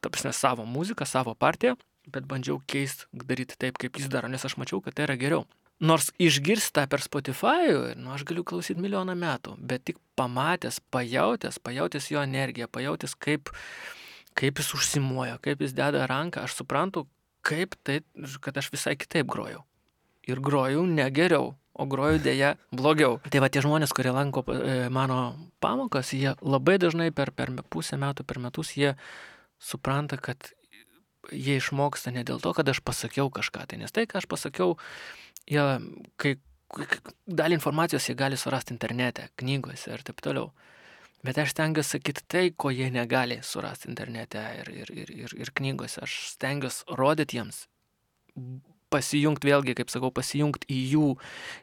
Ta prasme, savo muziką, savo partiją, bet bandžiau keisti, daryti taip, kaip jis daro, nes aš mačiau, kad tai yra geriau. Nors išgirstą per Spotify, aš galiu klausyti milijoną metų, bet tik pamatęs, pajautęs jo energiją, pajautęs, kaip jis užsimuoja, kaip jis deda ranką, aš suprantu, kad aš visai kitaip grojau. Ir grojau ne geriau, o groju dėja blogiau. Tai va tie žmonės, kurie lanko mano pamokas, jie labai dažnai per pusę metų, per metus, jie supranta, kad jie išmoksta ne dėl to, kad aš pasakiau kažką. Tai nes tai, ką aš pasakiau, kai dalį informacijos jie gali surasti internete, knygose ir taip toliau. Bet aš stengiuosi sakyti tai, ko jie negali surasti internete ir knygose. Aš stengiuosi rodyti jiems, pasijungti vėlgi, kaip sakau, pasijungti į jų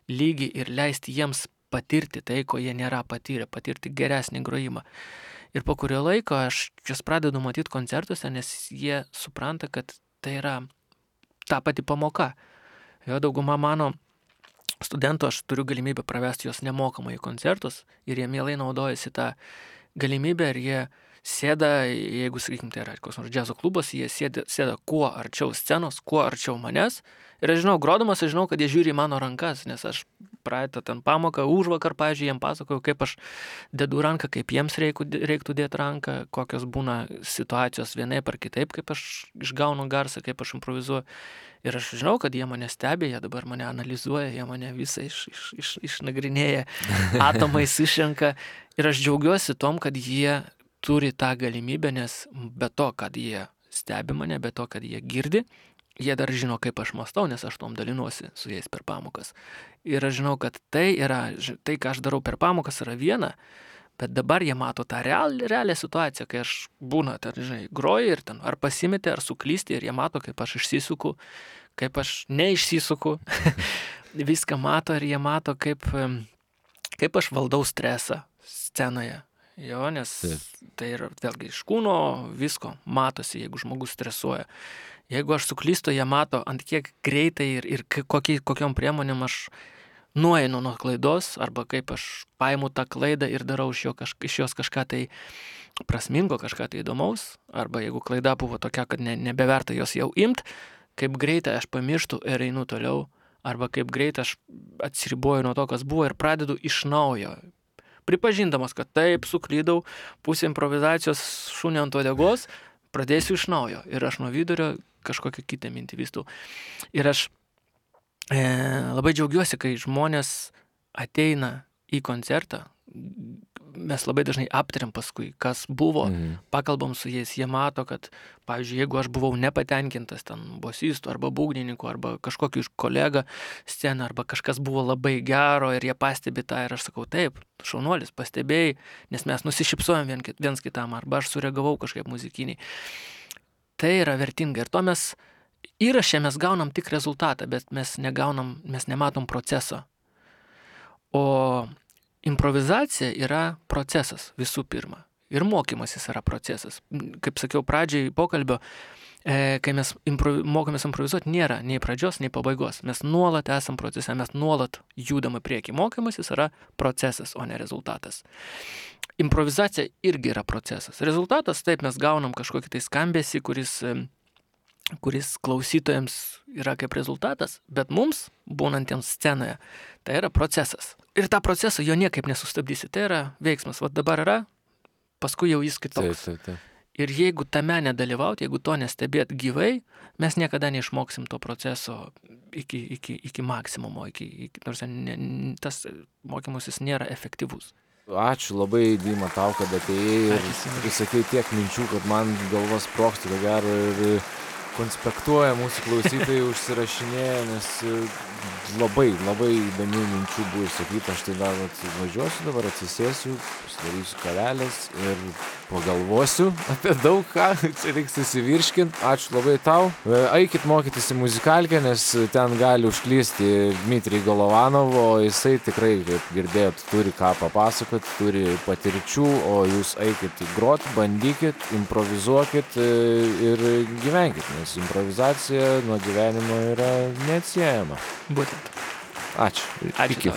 lygį ir leisti jiems patirti tai, ko jie nėra patyrę, patirti geresnį grojimą. Ir po kurio laiko aš jas pradedu matyti koncertuose, nes jie supranta, kad tai yra ta pati pamoka. Jo dauguma mano studentų, aš turiu galimybę pravesti juos nemokamai į koncertus ir jie mielai naudojasi tą galimybę ir jie sėda, jeigu, sakykim, tai yra koks nors džiazo klubas, jie sėda kuo arčiau scenos, kuo arčiau manęs. Ir aš žinau, grodamas, aš žinau, kad jie žiūri į mano rankas, nes aš praeitą ten pamoką, užvakar, pavyzdžiui, jiem pasakojau, kaip aš dedu ranką, kaip jiems reiktų dėti ranką, kokios būna situacijos vienaip ar kitaip, kaip aš išgaunu garsą, kaip aš improvizuoju. Ir aš žinau, kad jie mane stebi, jie dabar mane analizuoja, jie mane visą išnagrinėja, atomais išrenka. Ir aš džiaugiuosi tom, kad jie turi tą galimybę, nes be to, kad jie stebi mane, be to, kad jie girdi, jie dar žino, kaip aš mąstau, nes aš tom dalinuosi su jais per pamokas. Ir aš žinau, kad tai, ką aš darau per pamokas, yra viena, bet dabar jie mato tą realią situaciją, kai aš būna, groju ir ten ar pasimeti, ar suklysti, ir jie mato, kaip aš išsisuku, kaip aš neišsisuku, viską mato ir jie mato, kaip aš valdau stresą scenoje. Jo, nes tai yra vėlgi iš kūno visko matosi, jeigu žmogus stresuoja. Jeigu aš suklystu, jie mato, ant kiek greitai ir kokiom priemonėm aš nueinu nuo klaidos, arba kaip aš paimu tą klaidą ir darau iš jos kažką tai prasmingo, kažką tai įdomaus, arba jeigu klaida buvo tokia, kad nebeverta jos jau imt, kaip greitai aš pamirštu ir einu toliau, arba kaip greitai aš atsiriboju nuo to, kas buvo ir pradedu iš naujo. Pripažindamas, kad taip, suklydau, pusė improvizacijos šunio ant uodegos, pradėsiu iš naujo. Ir aš nuo vidurio kažkokią kitą mintį vystau. Ir aš labai džiaugiuosi, kai žmonės ateina į koncertą. Mes labai dažnai aptariam paskui, kas buvo, pakalbam su jais, jie mato, kad, pavyzdžiui, jeigu aš buvau nepatenkintas ten bosistų arba būgnininkų arba kažkokiu iš kolega sceną arba kažkas buvo labai gero ir jie pastebi tą ir aš sakau, taip, šaunuolis, pastebėjai, nes mes nusišypsojam viens kitam arba aš sureagavau kažkaip muzikiniai. Tai yra vertinga ir to mes įraše mes gaunam tik rezultatą, bet mes nematom proceso. O improvizacija yra procesas visų pirma. Ir mokymasis yra procesas. Kaip sakiau pradžiai pokalbio, kai mes mokomės improvizuoti, nėra nei pradžios, nei pabaigos. Mes nuolat esam procese, mes nuolat judam į priekį. Mokymasis yra procesas, o ne rezultatas. Improvizacija irgi yra procesas. Rezultatas, taip, mes gaunam kažkokį tai skambesį, kuris klausytojams yra kaip rezultatas, bet mums, būnantiems scenoje, tai yra procesas. Ir tą procesą jo niekaip nesustabdysi. Tai yra veiksmas. Vat dabar yra, paskui jau jis kitoks. Taip. Ir jeigu tame nedalyvauti, jeigu to nestebėt gyvai, mes niekada neišmoksim to proceso iki maksimumo. Nors tas mokymasis nėra efektyvus. Ačiū labai, Dima, tau, kad atėjai ir sakei tiek minčių, kad man galvos sprogsta, ko gero, ir konspektuoja mūsų klausytojai, užsirašinėja, nes labai įdomių minčių buvo išsakyta. Aš tai dar važiuosiu, dabar atsisėsiu, pasidarysiu kavelės ir pagalvosiu apie daug ką, čia reiks susivirškint. Ačiū labai tau. Eikit mokytis į muzikalkę, nes ten gali užklysti Dmitrij Golovanov, o jisai tikrai, kaip girdėjot, turi ką papasakot, turi patirčių, o jūs eikit grot, bandykit, improvizuokit ir gyvenkit, nes improvizacija nuo gyvenimo yra neatsiejama. Būtent. Ačiū. Ačiū.